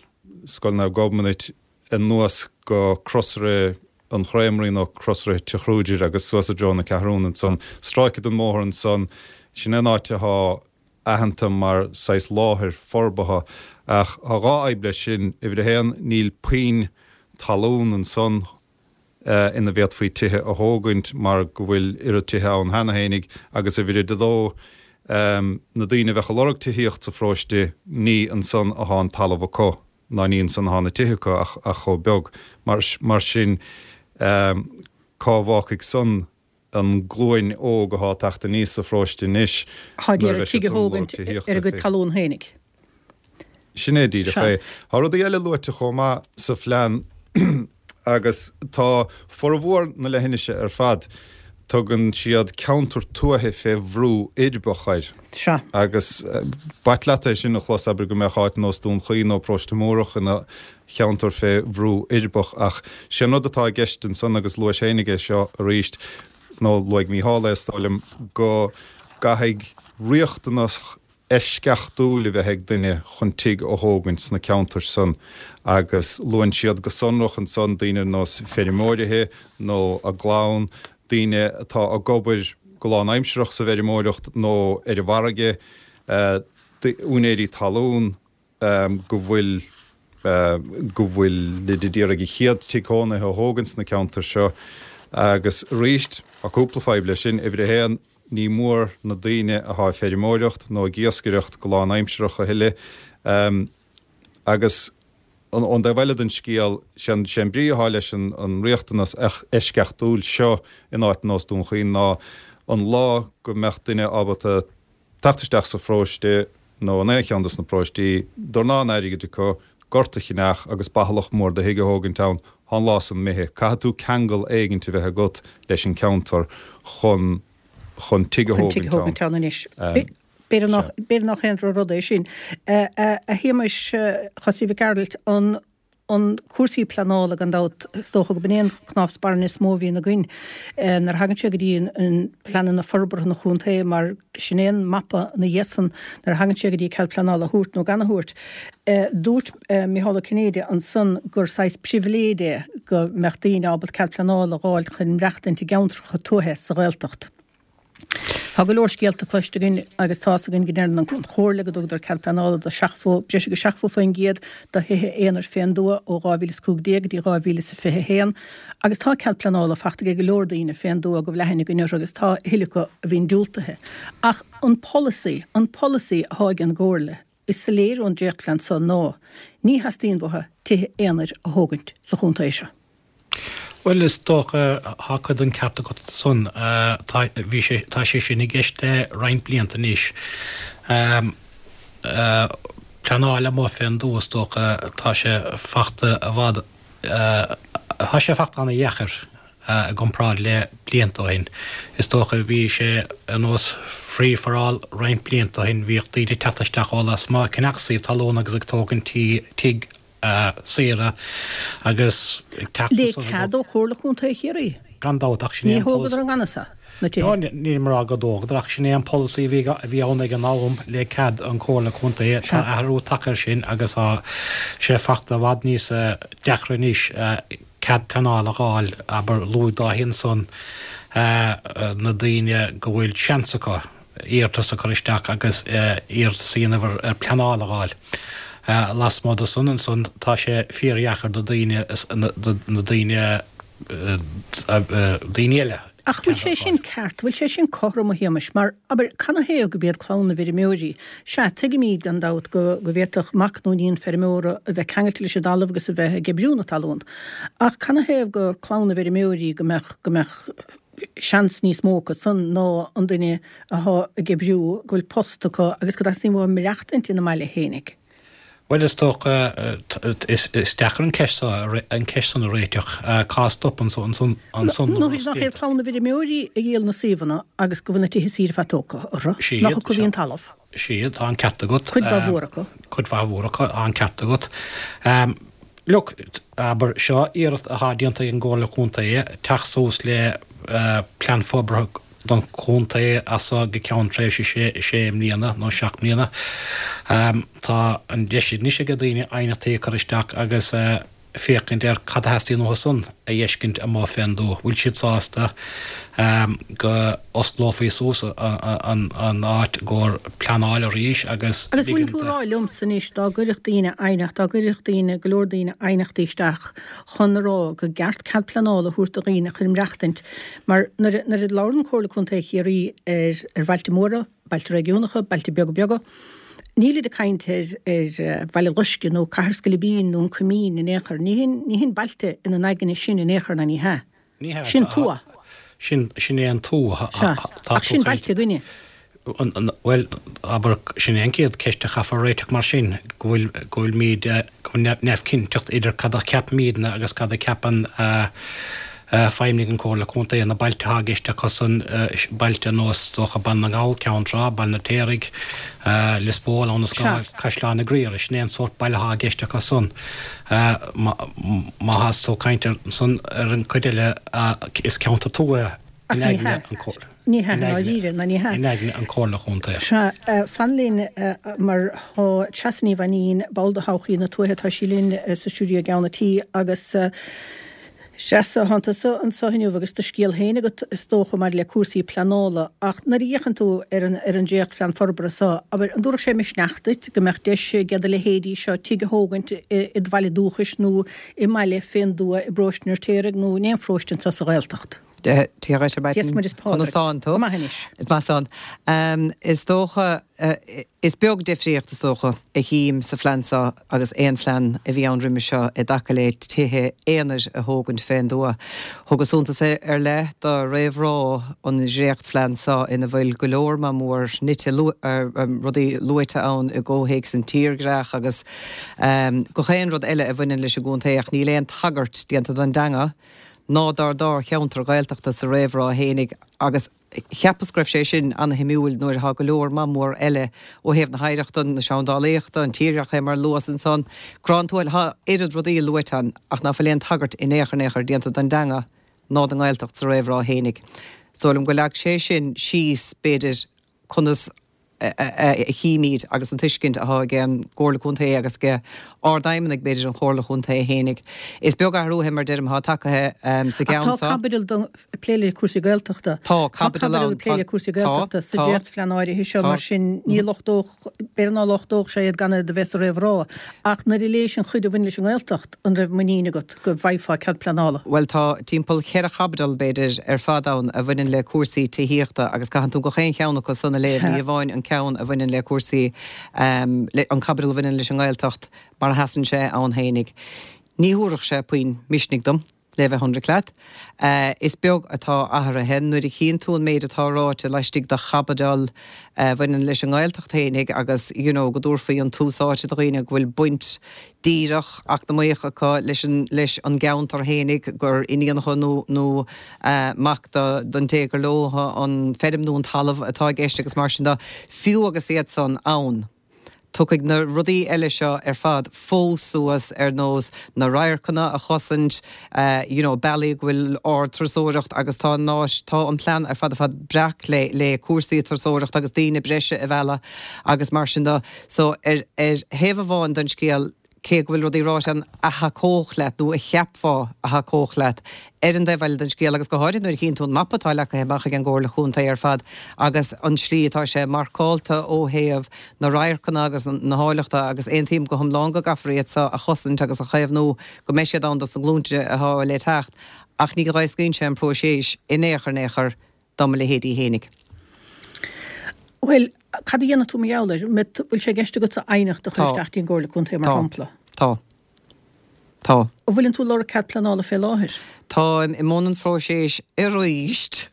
Speaker 5: Scoil Naomh Gobnait, anuas go Crosaire an Chréamraí nó Crosaire Tigh Kruger agus suas i dtreo na Ceathrún ansan. Stráice den mbóthar ansan, sin é an áit athá aitheanta mar saghas láthair forbartha. Ach tá dhá fhadhb leis sin. Uimhir a haon, níl puinn talún ansan ina bhféadfaí tithe a thógaint mar go bhfuil oiread tithe ann cheana fhéinig agus uimhir a dó, na daoine a bheadh ag lorg tithíocht sa pharóiste, ní ansan athá an talamh acu ná ní ansan athá na tithe acu ach chomh beag. Mar sin, cá bhfágfaidh san an glúin óg athá ag teacht aníos sa pharóiste anois
Speaker 1: Thá ag iarraidh tigh a thógaint ar a gcuid talún fhéinig.
Speaker 5: Sin é díreach é. Tá rudaí eile luaite chomh maith sa phlean agus tá formhór na leithinise ar fad, tugann siad ceantar tuaithe fé bhrú uirbeach air.
Speaker 1: Sea.
Speaker 5: Agus b'ait leat é sin a chlos, abair go mbeadh áit nós Dún Chaoin nó Paróiste Múrach ina cheantar fé bhrú uirbeach ach sé an rud atá i gceist ansan agus luais fhéinig é seo arís, nó luaigh Mícheál é is dóigh liom, go gcaithfidh riachtanas eisceachtúil a bheith ag duine chun tigh a thógaint sna ceantair san agus luann siad go sonrach ansan daoine ar nós feirmeoirithe nó a gclann, daoine atá ag obair go lánaimsearach sa bhfeirmeoireacht nó ar an bhfarraige, úinéirí talún. go bhfuil go bhfuilid ag iarraidh a chéad tigh cónaithe a thógaint sna ceantair seo agus arís tá cúpla fadhb leis sin. Uimhir a haon, ní mór na daoine athá ag feirmeoireacht nó ag iascaireacht go lánaimsearach a thuilleadh agus ón dtaobh eile den scéal, sé an brí athá leis an riachtanas eisceachtúil seo in áit nós Dún Chaoin ná an lá go mbeadh duine ábalta teacht isteach sa pharóiste nó in aon cheann dos na paróistí, dornán airgid acu, gort a cheannach agus bathalach mór de thigh a thógaint ann, thá an lá san imithe. Caithfidh tú ceangal éigint a bheith agat leis an ceantar chun chun tigh a
Speaker 1: Chun tigh a
Speaker 5: thógaint
Speaker 1: thógaint ann anois. B'fhéidir nach b'fhéidir nach aon droch-rud é sin. A Shéamais Chosaí Mhic Gearailt, an an cúrsaí pleanála gan dabht, is dócha go b'in é an cnámh spairne is mó a bhíonn againn nuair a thagann sé go dtí an pleananna forbartha an chontae mar sin é an mapa ina dhiaidh san nuair a thagann sé go dtí cead pleanála a thabhairt nó gan a thabhairt. Dúirt Micheál Ó Cinnéide ansan gur saghas pribhléid é go mbeadh daoine ábalta cead pleanála a dh'fháilt chun maireachtaint i gceantracha tuaithe sa Ghaeltacht. Tá go leor scéalta cloiste againn agus tá's againn go ndeireann an Chomhairle go dtugadar cead pleanála do 70, breis agus 70% de thithe aonair fén dtuath ó 2015 go dtí 2021 agus tá cead pleanála fachta ag go leor daoine fén dtuath go bhfuil aithne againn orthu agus tá a thuilleadh acu a bhíonn diúltaithe. Ach an polasaí, an polasaí athá ag an gComhairle, is soiléir ón dréachtphlean so ná ní theastaíonn uathu tithe aonair a thógaint sa chontae seo.
Speaker 3: Bhuel, is dócha, tá cuid den ceart agat san. Tá, bhí sé, tá sé sin i gceist le roinnt blianta anois. Pleanáil amuigh fén dtuath, is dócha, tá sé fachta i bhfad, tá sé fachta ana-dheacair i gcomparáid le blianta ó shin. Is dócha, bhí sé ar nós free for all roinnt blianta ó shin, bhíodh daoine ag teacht isteach ó lasmuigh, ag ceannach suíomh talún agus ag tógaint tí, tigh. saora agus
Speaker 1: ag teacht Le cead ó Chomhairle Chontae Chiarraí.
Speaker 3: Gan dabht, ach sin é
Speaker 1: an polasaí. Ní thógadar i ngan fhios na tithe.
Speaker 3: No, nílim ag rá go dtógadar, ach sin é an polasaí a bhí ann ag an am le cead an Chomhairle Contae. Tá athrú tagtha air sin agus tá sé fachta i bhfad níos deacra anois cead pleanála a fháil, abair, luaigh Dáithí ansan na daoine go bhfuil seans acu iarratas a chur isteach agus iarratas a dhéanamh ar pleanáil a fháil. Lasmuigh de san ansan tá sé fíordheacair do daoine, na daoine, daoine eile
Speaker 1: Ach bhfuil sé sin ceart, bhfuil sé sin cothrom, a Shéamais? Mar, abair, canathaobh gurb iad clann na bhfeirmeoirí? Sea, tuigimid, gan dabht, go bhféadfadh mac nó iníon feirmeora a bheith ceangailte leis an dtalamh agus a bheith ag oibriú na talún. Ach canathaobh gur clann na bhfeirmeoirí go mbeadh, go mbeadh seans níos mó acu san ná an duine athá ag oibriú, go bhfuil post acu agus go dteastaíonn uathu maireachtaint ina mbaile fhéinig?
Speaker 3: Bhuel, is dócha, is deacair an ceist seo, an ceist san a réiteach. Cá stopann ansan
Speaker 1: na Nó nach iad clann na bhfeirmeoirí a dhíol na suíomhanna agus go bhfuil na tithe saoire fad tógtha orthu, nach acu a bhí an talamh?
Speaker 3: Sea, tá an ceart agat.
Speaker 1: Cuid mhaith mhór acu.
Speaker 3: Cuid mhaith mhór acu, tá an ceart agat. Look, abair, seo iarracht atá déanta ag an gComhairle Contae teacht suas le plean forbartha don chontae as seo go ceann tréimhse sé mbliana nó 7 mbliana. Tá an deis anois ag daoine aighneachtaí a chur isteach agus féachaint ar cad a theastaíonn uathu san a fheiscint amuigh fén dtuath. Bhfuil siad sásta go osclófaí suas an áit i gcomhair pleanáil arís
Speaker 1: agus Agus bhfuil tú ag rá liomsa anois dá gcuirfeadh daoine aighneacht, dá gcuirfeadh daoine, go leor daoine aighneachtaí isteach chun a rá go gceart cead pleanála a thabhairt do dhaoine chun maireachtaint Mar nuair a labhrann Comhairle Contae Chiarraí ar ar bhailte móra, bailte réigiúnacha, bailte beaga beaga, nílid ag caint ar ar Bhaile Loiscthe nó Cathair Scoilbín nó an Coimín in aon chor. Ní hin ní hin bailte ina n-aigne sin in aon chor ná ní hea.
Speaker 3: Ní hea.
Speaker 1: Sin tuath.
Speaker 3: Sin sin é an tuath.
Speaker 1: Sea. Ach sin bailte againne.
Speaker 3: Bhuel, abair, sin é an chéad cheist a chaithfear a réiteach mar sin, go bhfuil, go bhfuilimid, go bhfuil neamhchinnteacht idir cad a cheapaimidne agus cad a cheapann feidhmeannaigh an Chomhairle Contae. Na bailte atá i gceist acusan, bailte ar nós, is dócha, Baile na nGall, Ceann Trá, Baile an Fheirtéaraigh, Lios Póil, Abha na Scáil, Caisleán na Griaire, sin é an sórt baile atá i gceist acusan. Má tá tú ag caint ar san, ar an chuid eile, is ceantar tuaithe
Speaker 1: in aigne an Chomhairle. Ní hea, i ndáiríre, ná ní hea.
Speaker 3: In aigne an Chomhairle Chontae.
Speaker 1: Sea, fan linn mar tá Treasa Ní Mhainín, ball de Thodhchaí na Tuaithe, tá sí linn sa stiúideo i gceann an tí agus Treasa, tánn tusa anseo inniu agus do scéal féin agat is dócha maidir le cúrsaí pleanála ach nuair a fhéachann tú ar an ar an dréachtphlean forbartha seo, abair, an dtabharfadh sé misneach duit go mbeadh deis ag do leithéidí seo tigh a thógaint i do bhaile dúchais nó i mbaile fén dtuath i bparóiste an Fheirtéaraigh nó in aon pharóiste anseo sa Ghaeltacht?
Speaker 6: Dia dhuit ar maidin. Dia 's Muire 's Pádraig. Conas tánn tú?
Speaker 1: Go maith anois.
Speaker 6: Is maith san. Is dócha, is beag difríocht is dócha a chím sa phlean seo agus aon phlean a bhí ann roimhe seo i dtaca le tithe aonair a thógaint fén dtuath. Thugas suntas ar leith do réamhrá an dhréachtphlean seo ina bhfuil go leor maith mór nite, rudaí luaite ann i gcomhthéacs an tírdhreach agus gach aon rud eile a bhaineann leis an gcontae ach níl aon tagairt déanta don dteanga ná dár dá cheantar Ghaeltachta sa réamhrá fhéinig agus cheapas go raibh sé sin ana-shuimiúil nuair atá go leor maith mór eile ó thaobh na hoidhreachta, na seandálaíochta, an tírdhreach fé mar a luas ansan, Grá an Tuathail, tá oiread rudaí luaite ann ach ná fuil aon tagairt in aon chor in aon chor déanta don dteanga ná don nGaeltacht sa réamhrá fhéinig. Is dóigh liom go leag sé sin síos b'fhéidir conas a chímid agus an tuiscint atá ag an gComhairle Contae agus ag Ard-Fheidhmeannaigh, b'fhéidir, an Chomhairle Chontae fhéinig. Is beag athrú, mar deirim, atá tagtha sa
Speaker 1: Ach
Speaker 6: gceann
Speaker 1: tá
Speaker 6: seo.
Speaker 1: caibidil don ag plé le cúrsaí Gaeltachta.
Speaker 6: Tá caibidil
Speaker 1: ann. Tá caibidil ag plé le cúrsaí Gaeltachta sa dréachtphlean áirithe seo, mar sin ní lochtódh, b'fhéidir ná lochtódh sé iad gan iad a bheith sa réamhrá. Ach nuair a léis an chuid a bhain leis an nGaeltacht, an raibh muinín agat go bhfaighfeá cead pleanála?
Speaker 6: Bhuel, tá timpeall cheithre chaibidil, b'fhéidir, ar fad ann a bhaineann le cúrsaí tithíochta agus caitheann tú gach aon cheann acu san a léamh, ní hamháin an ceann a bhaineann le cúrsaí, an caibidil a bhaineann leis an nGaeltacht mar a sheasann sé ann fhéinig. Ní thabharfadh sé puinn misnigh dom. Le bheith ionraic leat, is beag atá athraithe. Nuair a chíonn tú an méid atá ráite laistigh de chaibidil a bhaineann leis an nGaeltacht fhéinig agus you know go dtabharfaí an tús áite do dhaoine go bhfuil baint díreach eacnamaíoch acu leis an leis an gceantar fhéinig, gur iníonacha nó nó mac do don té gur leo an feirm nó an talamh atá i gceist agus mar sin de, fiú agus iad san ann. Tiocfaidh na rudaí eile seo ar fad fós suas ar nós na radharcanna a chosaint, you know bealaí go bhfuil ard-turasóireacht agus tá an áit, tá an plean ar fad ar fad breac le le cúrsaí turasóireachta agus daoine breise a mhealladh agus mar sin de. So ar ar thaobh amháin den scéal, cé go bhfuil rudaí ráite ann a thacódh leat nó a cheapfá a thacódh leat, ar an dtaobh eile den scéal, agus go háirithe nuair a chíonn tú an mapa atá leagtha amach ag an gComhairle Chontae ar fad agus an slí atá sé marcálta ó thaobh na radharcanna agus na háilleachta agus aontaím go hiomlán go gcaithfear iad seo a chosaint agus a chaomhnú go mbeidh siad ann dos na glúnta atá le teacht ach ní dh'éascaíonn sé an próiseas in aon chor in aon chor do mo leithéidí fhéinig.
Speaker 1: Bhuel, cad a dhéanfaidh tú mar gheall air? Bhfuil sé i gceist agatsa aighneacht a chur isteach dtí an gComhairle Contae mar shampla?
Speaker 6: Tá. Tá.
Speaker 1: An bhfuileann tú ag lorg cead pleanála fé láthair?
Speaker 6: Táim i mbun an phróiséis arís.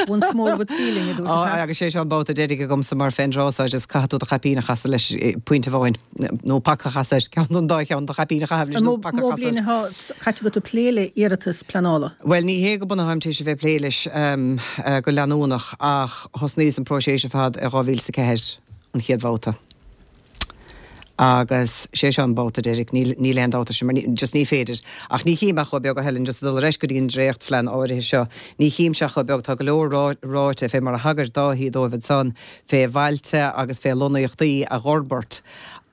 Speaker 1: Once more with feeling, a dúirt an fear.
Speaker 6: Agus sé seo an babhta deiridh agamsa mar fén dtráth so just caithfidh tú do chaipín a chasadh leis pointe amháin, nó paca a chasadh air, ceann den dá cheann, do chaipín a chaitheamh leis nó paca a
Speaker 1: chasadh air. An mó bliain atá caite agat ag plé le iarratas pleanála?
Speaker 6: Bhuel, ní hé go bunúsach táim tar éis a bheith ag plé leis go leanúnach ach thosnaíos an próiseas ar fad i 2004, an chéad bhabhta. Agus sé seo an babhta deiridh, níl, níl aon dabht air sin, mar ní, just ní féidir. Ach ní chím ach chomh beag, a Helen, just ag dul ar ais go dtí an dréachtphlean áirithe seo, ní chímse ach chomh beag, tá go leor rá, ráite fé mar a thagair Dáithí dóibh ansan, fé bhailte agus fé lonnaíochtaí a dh'fhorbairt.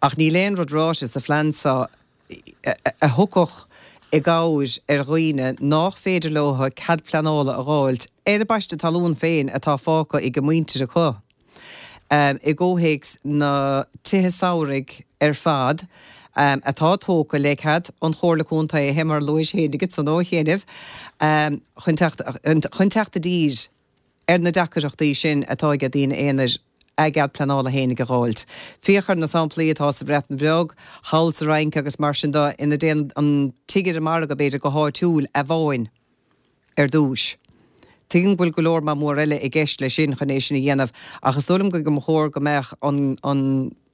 Speaker 6: Ach níl aon rud ráite sa phlean seo a thiocfadh i gcabhair ar dhaoine nách féidir leo cead pleanála a dh'fháilt ar a bpaiste talún féin atá fágtha ag a muintir acu. I gcomhthéacs na tithe samhraidh ar fad atá tógtha le cead an Chomhairle Contae, fé mar a luais fhéinig ansan ó chianaibh, chun teacht chun teacht i dtír ar na deacaireachtaí sin atá ag daoine aonair a gcead pleanála fhéinig a dh'fháilt. Féach ar na samplaí atá sa Bhreatain Bheag, thall sa Fhrainc agus mar sin de, ina dtéann an tigh ar an margadh, b'fhéidir, go háitiúil amháin. ar dtúis. Tuigim go bhfuil go leor maith mór eile i gceist leis sin chun é sin a dhéanamh ach is dóigh liom go mba chóir go mbeadh an an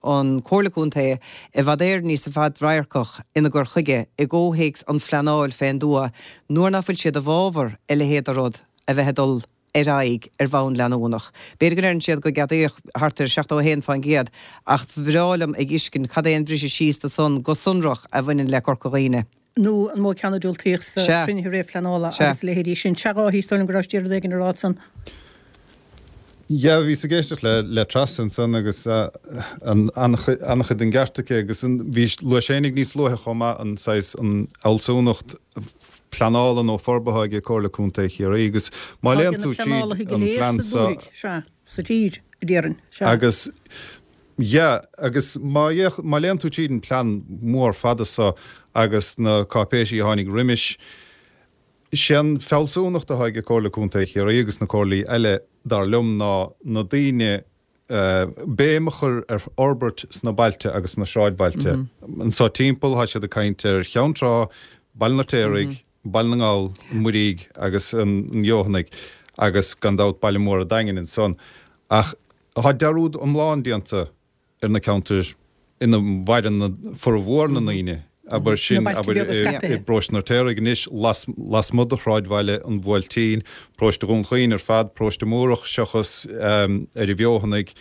Speaker 6: an Comhairle Contae i bhfad Éireann níos fadradharcach ina gcur chuige i gcomhthéacs an phleanáil fén dtuath nuair nach bhfuil siad i bhfabhar a leithéid de rud a bheith ag dul ar aghaidh ar bhonn leanúnach. B'fhéidir go ndeireann siad go gceadaíodh thart ar 71% ach bhreá liom a dh'fhiscint cad é an bhriseadh síos de san go sonrach a bhaineann le Corca Dhuibhne.
Speaker 1: nó an mó ceann a diúltaíodh sa
Speaker 6: Sea.
Speaker 1: chruinnithe réamhphleanála
Speaker 6: Sea.
Speaker 1: agus a leithéidí sin. Sea, a Dháithí, is dóigh liom go rabhais d'iarraidh rud éigin a rá ansan.
Speaker 5: Yeah, bhíos ag éisteacht le le Treasa ansan agus an an-chuid den gceart aici agus an bhí luaigh Séinig níos luaithe chomh maith an saghas an fhealsúnacht pleanála nó forbartha ag Comhairle Contae Chiarraí agus má
Speaker 1: Tá
Speaker 5: léann
Speaker 1: ag na
Speaker 5: tú tríd
Speaker 1: pleanálaithe go
Speaker 5: an
Speaker 1: léir
Speaker 5: phlean
Speaker 1: sa
Speaker 5: so
Speaker 1: dúthaigh, sea, sa tír, a déarfainn, sea.
Speaker 5: Agus Yeah, agus má fhéach, má léann tú tríd an plean mór fada so agus na cáipéisí a tháinig roimis, sé an fealsúnacht atá ag Comhairle Contae Chiarraí agus na comhairlí eile, dar liom, ná na daoine, béim a chur ar fhorbairt sna bailte agus sna sráidbhailte. Anso timpeall, tá siad ag caint ar Cheann Trá, Baile an Fheirtéaraigh, Baile na nGall, an Mhuirígh agus an Fheothanaigh agus gan dabht baile mór an Daingin ansan. Ach Tá dearúd iomlán déanta ar na ceantair ina mhaireann formhór na ndaoine, abair sin, abair, i bparóiste an Fheirtéaraigh anois, lasmuigh de shráidbhaile an Bhuailtín, paróiste Dhún Chaoin ar fad, paróiste Múrach seachas ar an bhFeothanaigh.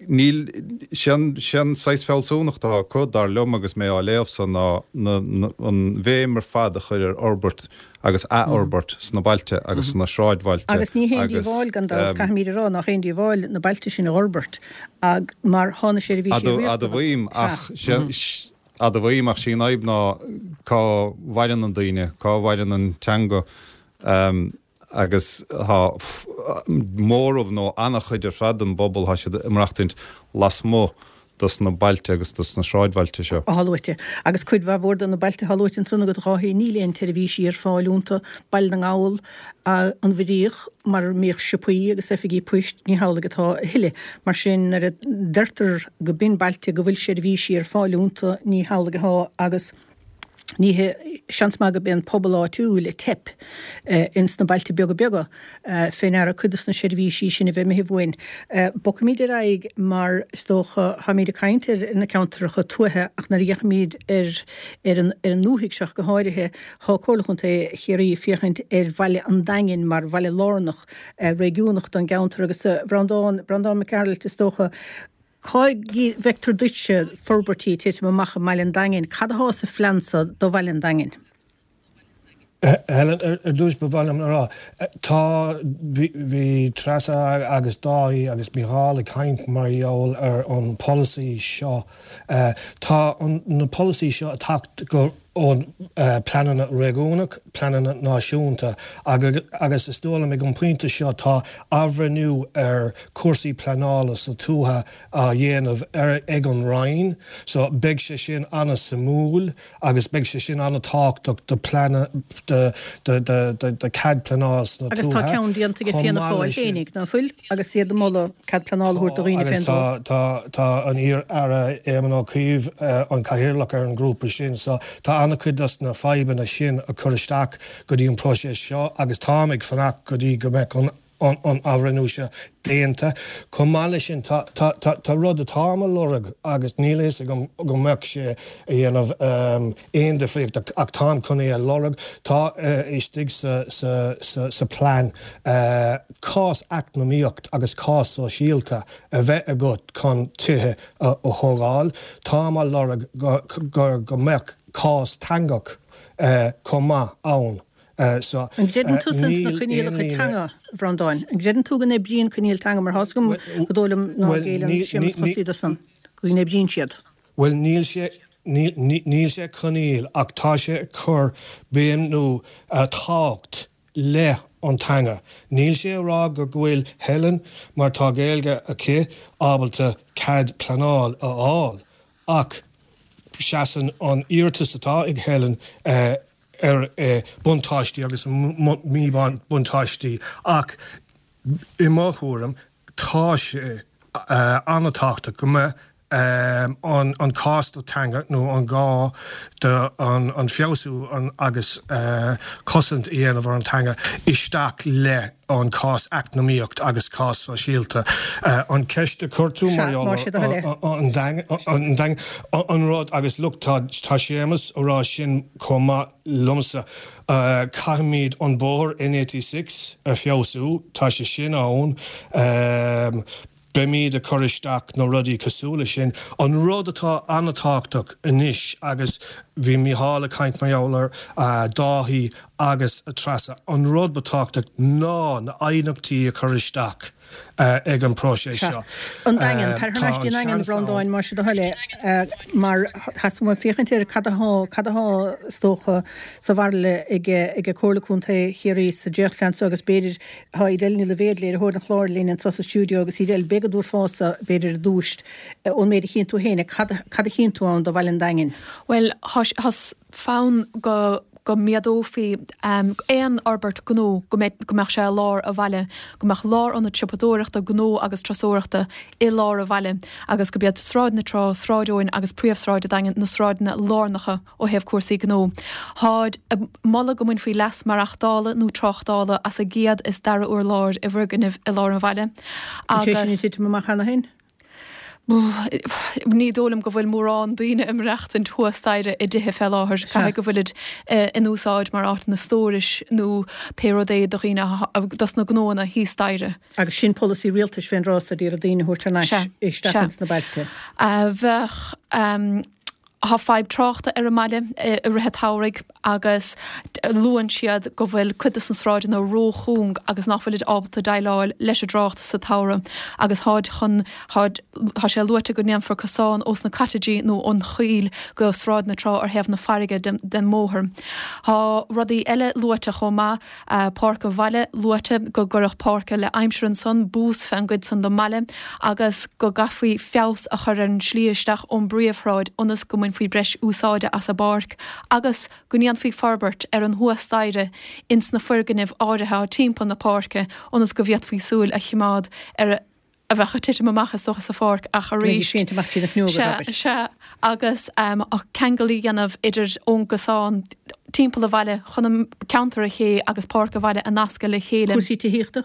Speaker 5: Níl, sé an, sé an saghas fealsúnacht atá acu, dar liom agus mé á léamh so, ná an bhéim ar fad a chur ar fhorbairt agus athfhorbairt sna bailte agus sna sráidbhailte
Speaker 1: Agus ní haon
Speaker 5: agus.
Speaker 1: díobháil, gan dabht, caithfimid a rá, nach aon díobháil na bailte sin a dh'fhorbairt ag mar thá na seirbhísí riachtanach.
Speaker 5: Admhaím, ach admhaím, ach sí an fhadhb ná cá mhaireann an daoine, cá mhaireann an teanga agus tá móramh nó an-chuid ar fad den bpobal, tá siad ag maireachtaint lasmuigh dos na bailte agus dos na sráidbhailte seo.
Speaker 1: atá luaite. Agus cuid mhaith mhór de na bailte atá luaite ansan agat, a Dháithí, níl aon tseirbhísí ar fáil iontu. Baile na nGall, an Mhuiríoch, mar a mbíodh siopaí agus oifigí poist, ní hamhlaidh atá a thuilleadh. Mar sin, nuair a deirtear go b'in bailte go bhfuil seirbhísí ar fáil iontu, ní hamhlaidh atá agus ní hé, seans maith go b'é an pobal áitiúil a teip ins na bailte beaga beaga fé ndeara cuid dos na seirbhísí sin a bheith imithe uainn. Bogfaimid ar aghaidh mar is dócha, táimid ag caint ar na ceantracha tuaithe ach nuair a fhéachaimid ar ar an ar an ndúthaigh seo go háirithe, tá Comhairle Chontae Chiarraí ag féachaint ar bhaile an Daingin mar bhaile lárnach réigiúnach don gceantar agus a Bhreandáin, Breandán Mac Gearailt is dócha. Cá bhfeictear duitse forbairtí ag titim amach i mBaile an Daingin? Cad athá sa phlean so do Bhaile an Daingin?
Speaker 2: Helen, ar dtús ba mhaith liom a rá, tá, bhí Treasa agus Dáithí agus Mícheál ag caint mar gheall ar an polasaí seo. Tá na polasaí seo ag teacht go ón pleananna réigiúnach, pleananna náisiúnta agus is dóigh liom ag an pointe seo tá athbhreithniú ar cúrsaí pleanála sa tuaithe á dhéanamh ag an Roinn so beidh sé sin an-suimiúil. agus beidh sé sin an-tábhachtach do plean do do cead pleanáil sna
Speaker 1: Agus tá
Speaker 2: tuaithe.
Speaker 1: ceann déanta ag
Speaker 2: Chomh
Speaker 1: Fianna
Speaker 2: maith
Speaker 1: Fáil
Speaker 2: leis sin,
Speaker 1: féinig, ná fuil? Agus iad ag moladh cead pleanála a
Speaker 2: tá
Speaker 1: thabhairt do dhaoine
Speaker 2: agus
Speaker 1: fén
Speaker 2: tá
Speaker 1: dtuath.
Speaker 2: tá tá an iar-Aire Éamon Ó Cuív an cathaoirleach ar an ngrúpa sin so tá an-chuid dos na fadhbanna sin a chur isteach go dtí an próiseas seo agus táim ag fanacht go dtí go mbeadh an an athbhreithniú seo déanta. Chomh maith leis sin, tá, tá, tá, tá rud atáim a lorg agus níl a fhios agam go mbeadh sé a dhéanamh aon difríocht ach táim chun é a lorg, tá istigh sa, sa, sa, sa plean cás eacnamaíocht agus cás sóisialta a bheith agat chun tithe a thógáil. Táim á lorg go, go, go mbeadh cás teangach chomh maith ann. So,
Speaker 1: An gcreideann tusa ins na
Speaker 2: níl aon
Speaker 1: coinníollacha
Speaker 2: líne.
Speaker 1: teanga, a Bhreandáin? An gcreideann tú go n-oibríonn coinníoll teanga mar tá's agam go dóigh liom ná géilleann Séamus Chosaí do san, go n-oibríonn siad?
Speaker 2: Bhuel, níl sé, níl sé coinníoll ach tá sé ag cur béim nó tábhacht le an teanga. Níl sé a rá go bhfuil Helen, mar tá Gaeilge aici, ábalta cead pleanáil a fháil ach seasann an iarratas atá ag Helen ar buntáistí agus míbhuntáistí ach i mo thuairim tá sé an-tábhachtach go mbeadh an cás do teanga nó an gá do an feabhsú agus cosaint a dhéanamh ar an teanga isteach le an cás eacnamaíocht agus cás sóisialta. An ceist a chuir tú mar gheall ar an Daingean, an rud agus look tá Séamus a rá sin chomh maith liomsa, caithfimid an bóthar N86 a feabhsú, tá sé sin ann. Beimid ag cur isteach na rudaí cosúil le sin. An rud atá an-tábhachtach anois, agus bhí Mícheál ag caint mar gheall ar Dáithí agus Treasa, an rud ba tábhachtach ná na aighneachtaí a chur isteach ag an próiseas
Speaker 1: Sea.
Speaker 2: seo.
Speaker 1: An Daingean, tar thar
Speaker 2: Tá
Speaker 1: n-ais dtí
Speaker 2: an
Speaker 1: an Daingean, a
Speaker 2: seans ann.
Speaker 1: Bhreandáin, más é do thoil é, mar theastaigh uaim féachaint ar cad athá, cad athá, is dócha, sa bhairille ag, ag Comhairle Contae Chiarraí sa dréachtphlean seo agus b'fhéidir, Tá Edel Ní Loibhéad, léiritheoir an chláir, linn anseo sa stiúideo agus Edel, b'fhéidir go dtabharfása, b'fhéidir ar dtús, ón méid a chíonn tú féin, cad, cad a chíonn tú ann do Bhaile an Daingin?
Speaker 7: Bhuel, tá fonn go go méadófaí aon fhorbairt gnó go mbeidh, go mbeadh sé i lár an bhaile, go mbeadh lárionad siopadóireachta, gnó agus turasóireachta i lár an bhaile agus gurb iad Sráid na Trá, Sráid Eoin agus Príomhshráid an Daingin na sráideanna lárnacha Ó thaobh cúrsaí gnó, táid ag moladh go mbainfí leas maireachtála nó tráchtála as an gcéad is dara urlár i bhfoirgnimh i lár an bhaile
Speaker 1: An sé sin ag
Speaker 7: agus.
Speaker 1: titim amach cheana féin?
Speaker 7: Ní dóigh liom go bhfuil mórán daoine ag maireachtaint thuas staighre i dtithe fé láthair. Caithfidh go bhfuilid in úsáid mar áiteanna stórais nó pé rud é do dhaoine, dos na gnóanna thíos staighre.
Speaker 1: Agus sin polasaí rialtais fén dtráth so d'iarraidh daoine a thabhairt thar n-ais isteach ins na bailte.
Speaker 7: Bheadh. Tá fadhb tráchta ar an mbaile i rith an tsamhraidh agus luann siad go bhfuil cuid de na sráideanna ró-chúng agus nach bhfuilid ábalta déileáil leis an dtrácht sa tsamhradh agus táid chun, táid, tá sé luaite go ndéanfar cosán ós na cottageí nó ón choill go Sráid na Trá ar thaobh na farraige den mbóthar. Tá rudaí eile luaite chomh maith. Páirc an Bhaile, luaite go gcuirfeadh páirc le aimsir ansan, bús fén gcuid san den mbaile agus go gcaithfí feabhas a chur ar an slí isteach ón bpríomhshráid ionas go mbainfí breis úsáide as an bpáirc agus go ndéanfaí forbairt ar an thuas staighre ins na foirgnimh áirithe atá timpeall na páirce ionas go bhféadfaí súil a chimeád ar a bheadh ag titim amach is dócha sa pháirc ach arís, sea, sea, agus ceangal a dhéanamh idir ón gcosán timpeall an bhaile chun an ceantar an ché agus páirc an bhaile a nascadh le chéile.
Speaker 1: Cúrsaí tithíochta?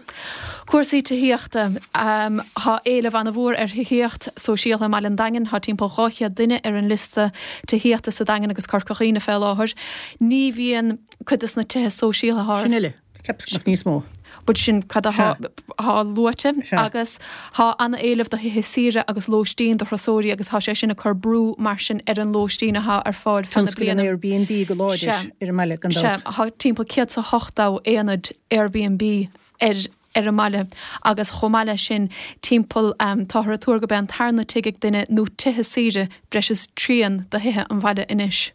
Speaker 7: Cúrsaí tithíochta. Tá éileamh an-mhór ar thithíocht sóisialta i mBaile an Daingin. Tá timpeall 200 duine ar an liosta tithíochta sa Daingean agus Corca Dhuibhne fé láthair. Ní bhíonn cuid de na tithe sóisialta
Speaker 1: Sin uile. Cheapas go mbeadh níos mó.
Speaker 7: But sin cad athá luaite agus thá ana-éileamh do thithe saoire agus lóistín do thurasóirí agus thá sé sin ag cur brú mar sin ar an lóistín athá ar fáil feadh na
Speaker 1: Tionscal an
Speaker 7: bliana.
Speaker 1: Airbnb go láidir ar an mbaile gan
Speaker 7: Sea,
Speaker 1: dabht.
Speaker 7: thá timpeall 180 aonad Airbnb ar ar an mbaile agus chomh maith leis sin timpeall táthar ag tuar go b'é an tarna tigh ag duine nó tithe saoire breis is trian de thithe an bhaile anois.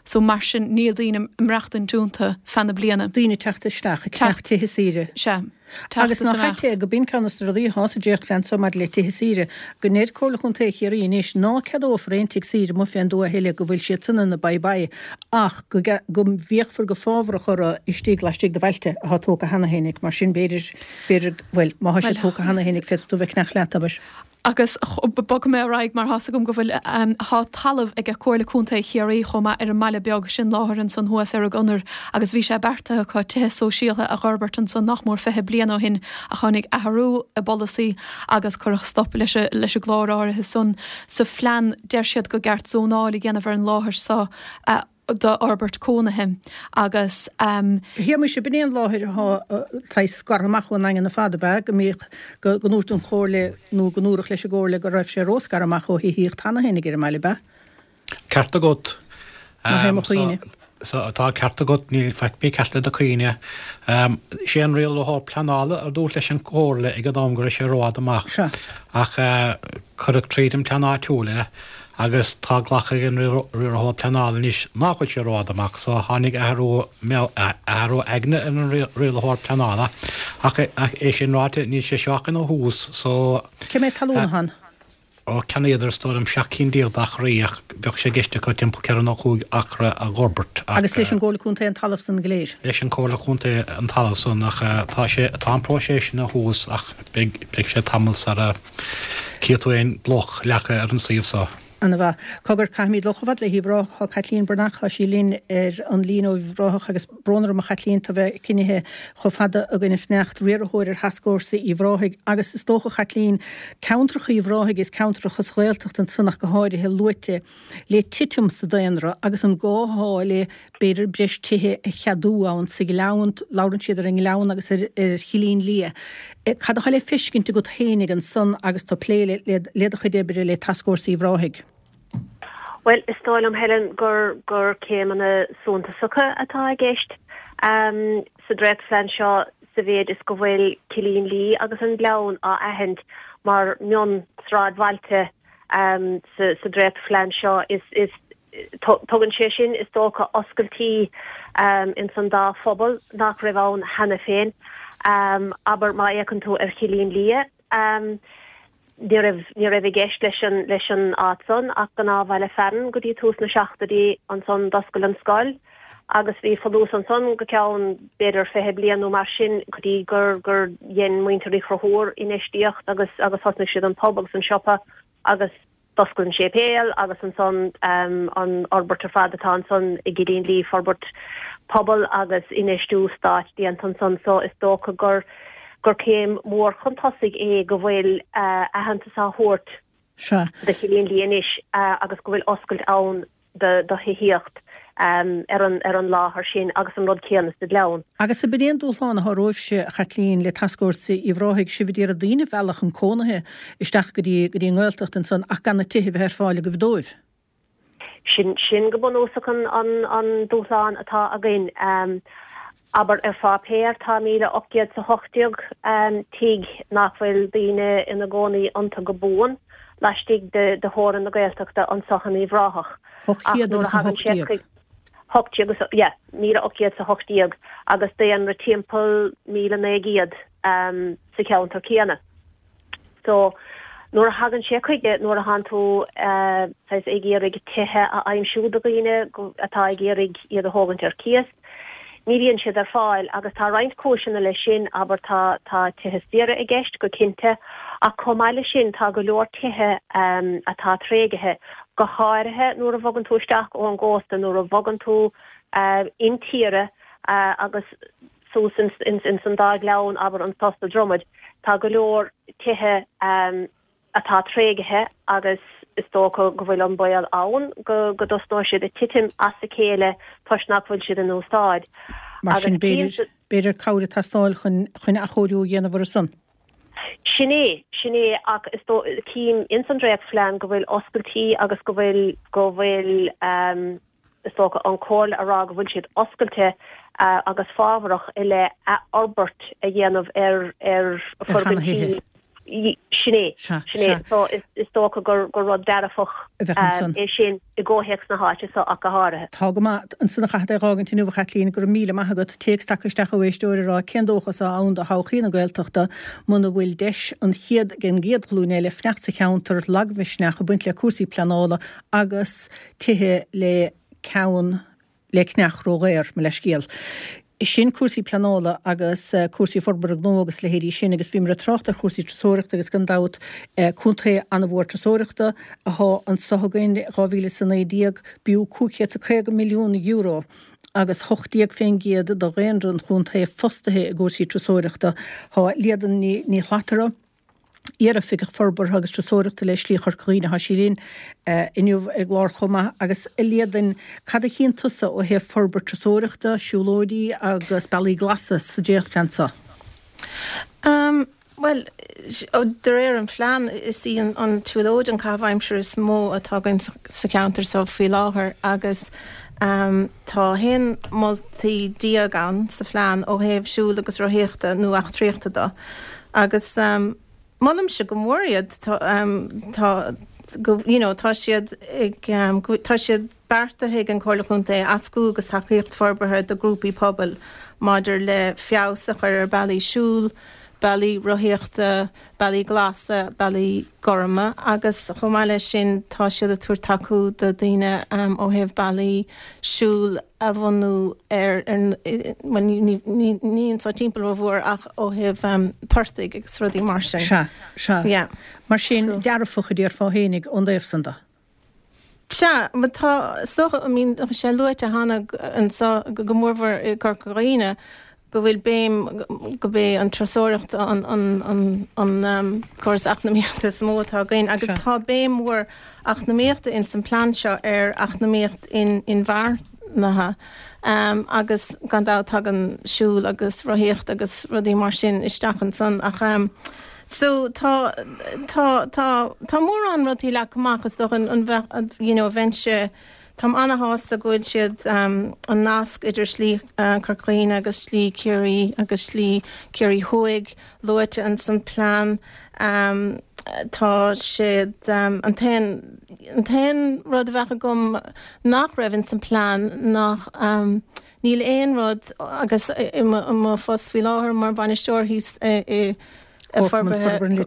Speaker 7: So mar sin níl daoine ag maireachtaint iontu feadh na bliana.
Speaker 1: Daoine ag teacht isteach ag ceannach tithe saoire.
Speaker 7: Sea. Teacht
Speaker 1: Agus
Speaker 7: is
Speaker 1: nach
Speaker 7: imeacht.
Speaker 1: ait é go b'in ceann des na rudaí athá sa dréachtphlean so maidir le tithe saoire, go ndeir Comhairle Chontae Chiarraí anois ná ceadófar aon tigh saoire amuigh fén dtuath a thuilleadh, go bhfuil siad san ina bye bye ach go go bhféachfar go fábharach orthu istigh laistigh de bhailte athá tógtha cheana fhéinig. Mar sin b'fhéidir, b'fhéidir, bhuel, má thá siad tógtha cheana fhéinig féadfaidh tú bheith ag ceannach leat, abair.
Speaker 7: Agus bogfaidh mé ar aghaidh mar thá's agam go bhfuil, thá talamh ag Comhairle Contae Chiarraí chomh maith ar an mBaile Beag, sin láthair ansan thuas ar an gConair agus bhí sé beartaithe acu tithe sóisialtha a dh'fhorbairt ansan nach mór 20 bliain ó shin ach tháinig athrú i bpolasaí agus cuireadh stop leis leis an gclár áirithe san. Sa phlean deir siad go gceart zónáil a dhéanamh ar an láthair so a d'fhorbairt cónaithe agus.
Speaker 1: A Shéamuis, ab in é an láthair athá saghas scartha amach ón nDaingean ar fad, ab ea? Go mbíodh, go ndúirt an Chomhairle nó go ndúradh leis an gComhairle go raibh sé ró-scartha amach ó thithíocht cheana féinig ar an mbaile, ab ea?
Speaker 3: Ceart agat.
Speaker 1: Nach é mo chuimhne.
Speaker 3: So, tá ceart agat, níl faic mícheart le do chuimhne. Sé an rialaitheoir pleanála a dúirt leis an gComhairle ag an am go raibh sé rófhada amach.
Speaker 1: Sea.
Speaker 3: Ach cuireadh tríd an bplean áitiúil é agus tá glactha ag an riarthóir pleanála anois nach bhfuil sé rófhada amach so tháinig athrú athrú aigne ar an rialaitheoir pleanála ach é sin ráite níl sé seo ach ina thús so
Speaker 1: Cé méad talún atá ann?
Speaker 3: Ó cheannaíodar is dóigh liom 17 cinn d'acraí ach bheadh sé i gceist acu timpeall 4 nó 5 acra a dh'fhorbairt
Speaker 1: ach. Agus leis an gComhairle Contae an talamh san go léir?
Speaker 3: Leis an Comhairle Contae an talamh san ach tá sé tá an próiseas ina thús ach beidh beidh sé tamall sara gcífidh tú aon bloc leagtha ar an suíomh so.
Speaker 1: Ana mhaith. Cogar, caithfimid dul chomh fada le hUíbh Ráthach. Tá Caitlín Breathnach, tá sí linn ar an líne ó Uíbh Ráthach agus brón orm a Chaitlín, tú bheith coinnithe chomh fada againn ag fanacht, riarthóir ar Thascfhórsa Uíbh Ráthaigh agus is dócha Chaitlín, ceantracha Uíbh Ráthaigh is ceantracha sa Ghaeltacht ansan ach go háirithe luaite le titim sa daonra agus an gá athá le b'fhéidir breis tithe a cheadú ann sa Ghleann, labhrann siad ar an nGleann agus ar Chillín Liath. Cad atá le feiscint agat féinig ansan agus tú ag plé le do chuid oibre le Tascfhórsa Uíbh Ráthaigh?
Speaker 8: Bhuel, is dóigh liom, Helen, gur gur céimeanna suntasacha atá i gceist sa dréachtphlean seo sa mhéid is go bhfuil Cillín Liath agus an Gleann á aithint mar mhion-sráidbhailte sa dréachtphlean seo. Is Tugann sé sin, is dócha, oscailtí ins an dá phobal nach raibh ann cheana féin. Abair, má fhéachann tú ar Chillín Liath, ní raibh, ní raibh i gceist leis an, leis an áit san ach gnáthbhaile fearainn go dtí tús na seachtóidí. Ansan d'oscail an scoil agus bhí folús ansan go ceann b'fhéidir 20 bliain nó mar sin go dtí gur, gur dhein muintir Uí Chonchúir infheistíocht agus, agus thosnaigh siad an pub agus an siopa agus D'oscail an séipéal agus ansan an fhorbairt ar fad atá ansan i gCillín Liath, forbairt pobail agus infheistiú stáit déanta ansan so is dócha gur gur céim mhór chun tosaigh é go bhfuil aitheantas á thabhairt do Chillín Liath anois agus go bhfuil oscailt ann do thithíocht ar an ar an láthair sin agus an rud céanna sa Ghleann.
Speaker 1: Agus ab in é an dúshlán atá romhaibhse, a Chaitlín, le Tascfhórsa Uíbh Ráthaigh, sibh a d'iarraidh daoine a mhealladh chun cónaithe isteach go dtí go dtí an nGaeltacht ansan ach gan na tithe a bheith ar fáil agaibh dóibh.
Speaker 8: Sin sin go bunúsach an an an dúshlán atá againn. Abair ar pháipéar tá 1,818 tigh nach bhfuil daoine ina gcónaí iontu go buan laistigh de theorainn na Gaeltachta anso in Uíbh Ráthach. Ach nuair a thagann sé chuig. 18 agus, yeah, 1,818 agus daonra timpeall 1,900 sa cheantar céanna. So, nuair a thagann sé chuige, nuair a thánn tú saghas ag iarraidh tithe a aimsiú do dhaoine atá ag iarraidh iad a thógaint ar cíos, ní bhíonn siad ar fáil agus tá roinnt cúiseanna leis sin, abair tá tá tithe saoire i gceist go cinnte ach chomh maith leis sin tá go leor tithe atá tréigthe, go háirithe nuair a bhogann tú isteach ón gcósta, nuair a bhogann tú intíre agus suas ins an dá ghleann, abair, anso sa Dromaid, tá go leor tithe atá tréigthe agus is dócha go bhfuil an baol ann go go dtosnóidh siad ag titim as a chéile toisc nach bhfuil siad in úsáid.
Speaker 1: Mar sin, b'fhéidir, b'fhéidir cabhair ag teastáil chun, chun athchóiriú a dhéanamh orthu san.
Speaker 8: Sin é, sin é, ach is dóigh, cím ins an dréachtphlean go bhfuil oscailtí agus go bhfuil, go bhfuil, is dócha, an Chomhairle a rá go bhfuil siad oscailte agus fábharach i leith athfhorbairt a dhéanamh ar ar
Speaker 1: fhoirgintí.
Speaker 8: Sin é, sin é. So is dócha gur rud dearfach é sin i gcomhthéacs na háite so ach go háirithe.
Speaker 1: Tá go maith. Ansan a chaithfead é dh'fhágaint inniu, a Chaitlín. Go raibh míle maith agat. Téacs tagtha isteach ó éisteoir ag rá cén dóchas atá ann do thodhchaí na Gaeltachta muna bhfuil deis an chéad ag an gcéad ghlúin eile fanacht sa cheantar, lagmhisneach ag baint le cúrsaí pleanála agus tithe le ceann le cneach ródhaor, mo leithscéal. Sin cúrsaí pleanála agus cúrsaí forbartha gnó agus leithéidí sin agus bhíomar ag trácht ar chúrsaí turasóireachta agus gan dabht contae an-mhór turasóireachta athá anso againn. 2019 b'fhiú €550 milliún agus 18% de dhaonra an chontae fostaithe i gcúrsaí turasóireachta. Tá Líadan Ní Shlatara. Iar-Oifigeach Forbartha agus Turasóireachta le Slí Chorca Dhuibhne. Tá sí linn inniu ar an gclár chomh maith. Agus a Líadain, cad a chíonn tusa ó thaobh forbairt turasóireachta, siúlóidí agus bealaí glasa sa dréachtphlean seo?
Speaker 9: Bhuel, de réir an phlean, is í an tsiúlóid an caitheamh aimsire is mó atá againn sa cheantar seo faoi láthair agus tá 11 moltaí ann sa phlean ó thaobh siúl agus rothaíochta nó eachtraíochta de. Agus molaimse go mór iad, tá, you know, tá siad ag, tá siad beartaithe ag an Chomhairle Chontae éascú agus tacaíocht forbartha do ghrúpaí pobail maidir le feabhas a chur ar bealaí siúil, bealaí rothaíochta, bealaí glasa, bealaí gorma agus chomh maith leis sin tá siad ag tabhairt tacú do daoine ó thaobh bealaí siúil a bhunú ar, bhuel ní anso timpeall rómhór ach ó thaobh portaigh agus rudaí mar sin.
Speaker 1: Sea, sea.
Speaker 9: Yeah.
Speaker 1: Mar sin, dearfach a déarfá fhéinig ón dtaobh san de.
Speaker 9: Sea, mar tá, is dócha, I mean, tá sé luaite cheana anso go mórmhór i gCorca Dhuibhne go bhfuil béim, gurb é an turasóireacht an, an, an, an córas eacnamaíochta is mó atá againn agus tá béim mhór eacnamaíochta ins an plean seo ar eacnamaíocht inmharthana agus gan dabht tagann siúl agus rothaíocht agus rudaí mar sin isteach ansan ach so tá tá tá tá mórán rudaí leagtha amach is dócha an bheadh you know bheinnse táim ana-shásta go bhfuil siad an nasc idir Slí Chorca Dhuibhne agus Slí Chiarraí agus Slí Chiarraí Thuaidh luaite ins an plean. Tá siad, an t-aon, an t-aon rud a bheadh agam nach raibh ins an plean nach, níl aon rud agus i mo phost faoi láthair mar bhainisteoir thíos i
Speaker 1: Forbartha
Speaker 9: an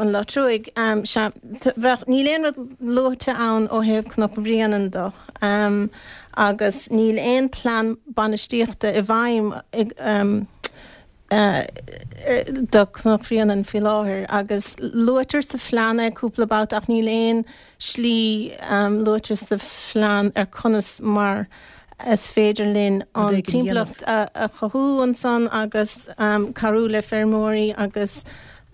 Speaker 9: Locha Truaigh, sea, bheadh, níl aon rud luaite ann ó thaobh Cnoc Bhréanainn de agus níl aon plean bainistíochta i bhfeidhm ag, do Chnoc Bhréanainn faoi láthair agus luaitear sa phlean é cúpla babhta ach níl aon slí luaite sa phlean ar conas mar is féidir linn an timpeallacht a chothú ansan agus cabhrú le feirmeoirí agus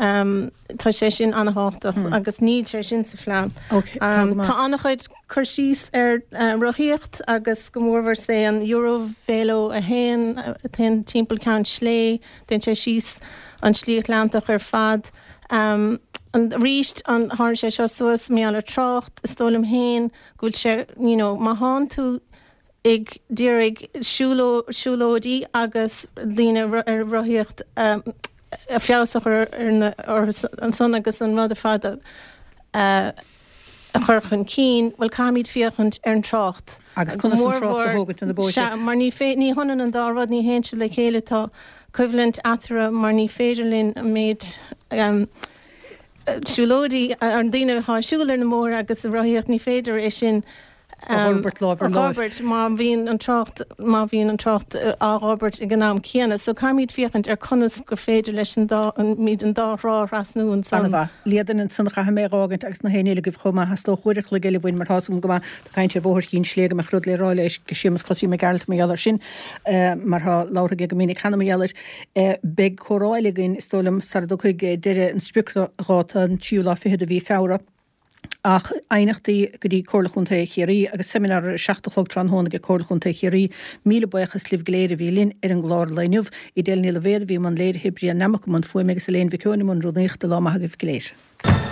Speaker 9: tá sé sin an-thábhachtach agus níl sé sin sa phlean. Tá an-chuid cur síos ar rothaíocht agus go mórmhór sé an Eurovelo 1 a théann timpeall Ceann Slé, téann sé síos an tSlí Atlantach ar fad. Arís, tharraing sé seo suas mar gheall ar trácht, is dóigh liom féin go bhfuil sé, you know, má thánn tú ag d'iarraidh siúlóidí agus daoine ar rothaíocht a feabhas a chur ar ansan agus an rud ar fad a a chur chun cinn, bhuel caithfimid féachaint ar an trácht.
Speaker 1: Agus conas an trácht a thógaint ar na bóithre.
Speaker 9: Sea, mar ní ní hionann an dá rud, ní théann siad le chéile, tá coimhlint eatarthu mar ní féidir linn an méid siúlóidí, an daoine atá ag siúl ar na mbóithre agus ag rothaíocht, ní féidir é sin
Speaker 1: a fhorbairt lámh ar láimh.
Speaker 9: A fhorbairt má bhíonn an trácht, má bhíonn an trácht á fhorbairt ag an am céanna. So caithfimid féachaint ar conas gur féidir leis an dá, muid an dá thrá a thrasnú ansan.
Speaker 1: Ana-mhaith. Líadan ansan a chaithfidh mé a dh'fhágaint agus na héinne eile agaibh chomh maith. Theastódh uair a chloig eile uainn mar tá's agam go maith tá caint ar Bhóthar Chinn Slé go mbeadh rud le rá le Séamus Chosaí Mac Gearailt mar gheall air sin mar tá labhartha aige go minic cheana mar gheall air. Beidh comhrá eile againn is dóigh liom sara dtiocfaidh deireadh an spriocdháta an tríú lá fichead de mhí Feabhra. Ach aighneachtaí go dtí Comhairle Chontae Chiarraí agus seimineár ar a 7 a chlog tráthnóna ag Comhairle Chontae Chiarraí. Míle buíochas libh go léir a bhí linn ar an gclár lae inniu. Edel Ní Loibhéad a bhí i mbun léirithe, Brian Nammock i mbun fuaime agus Elaine Mhic Eoin i mbun rúnaíochta. Lá maith agaibh go léir.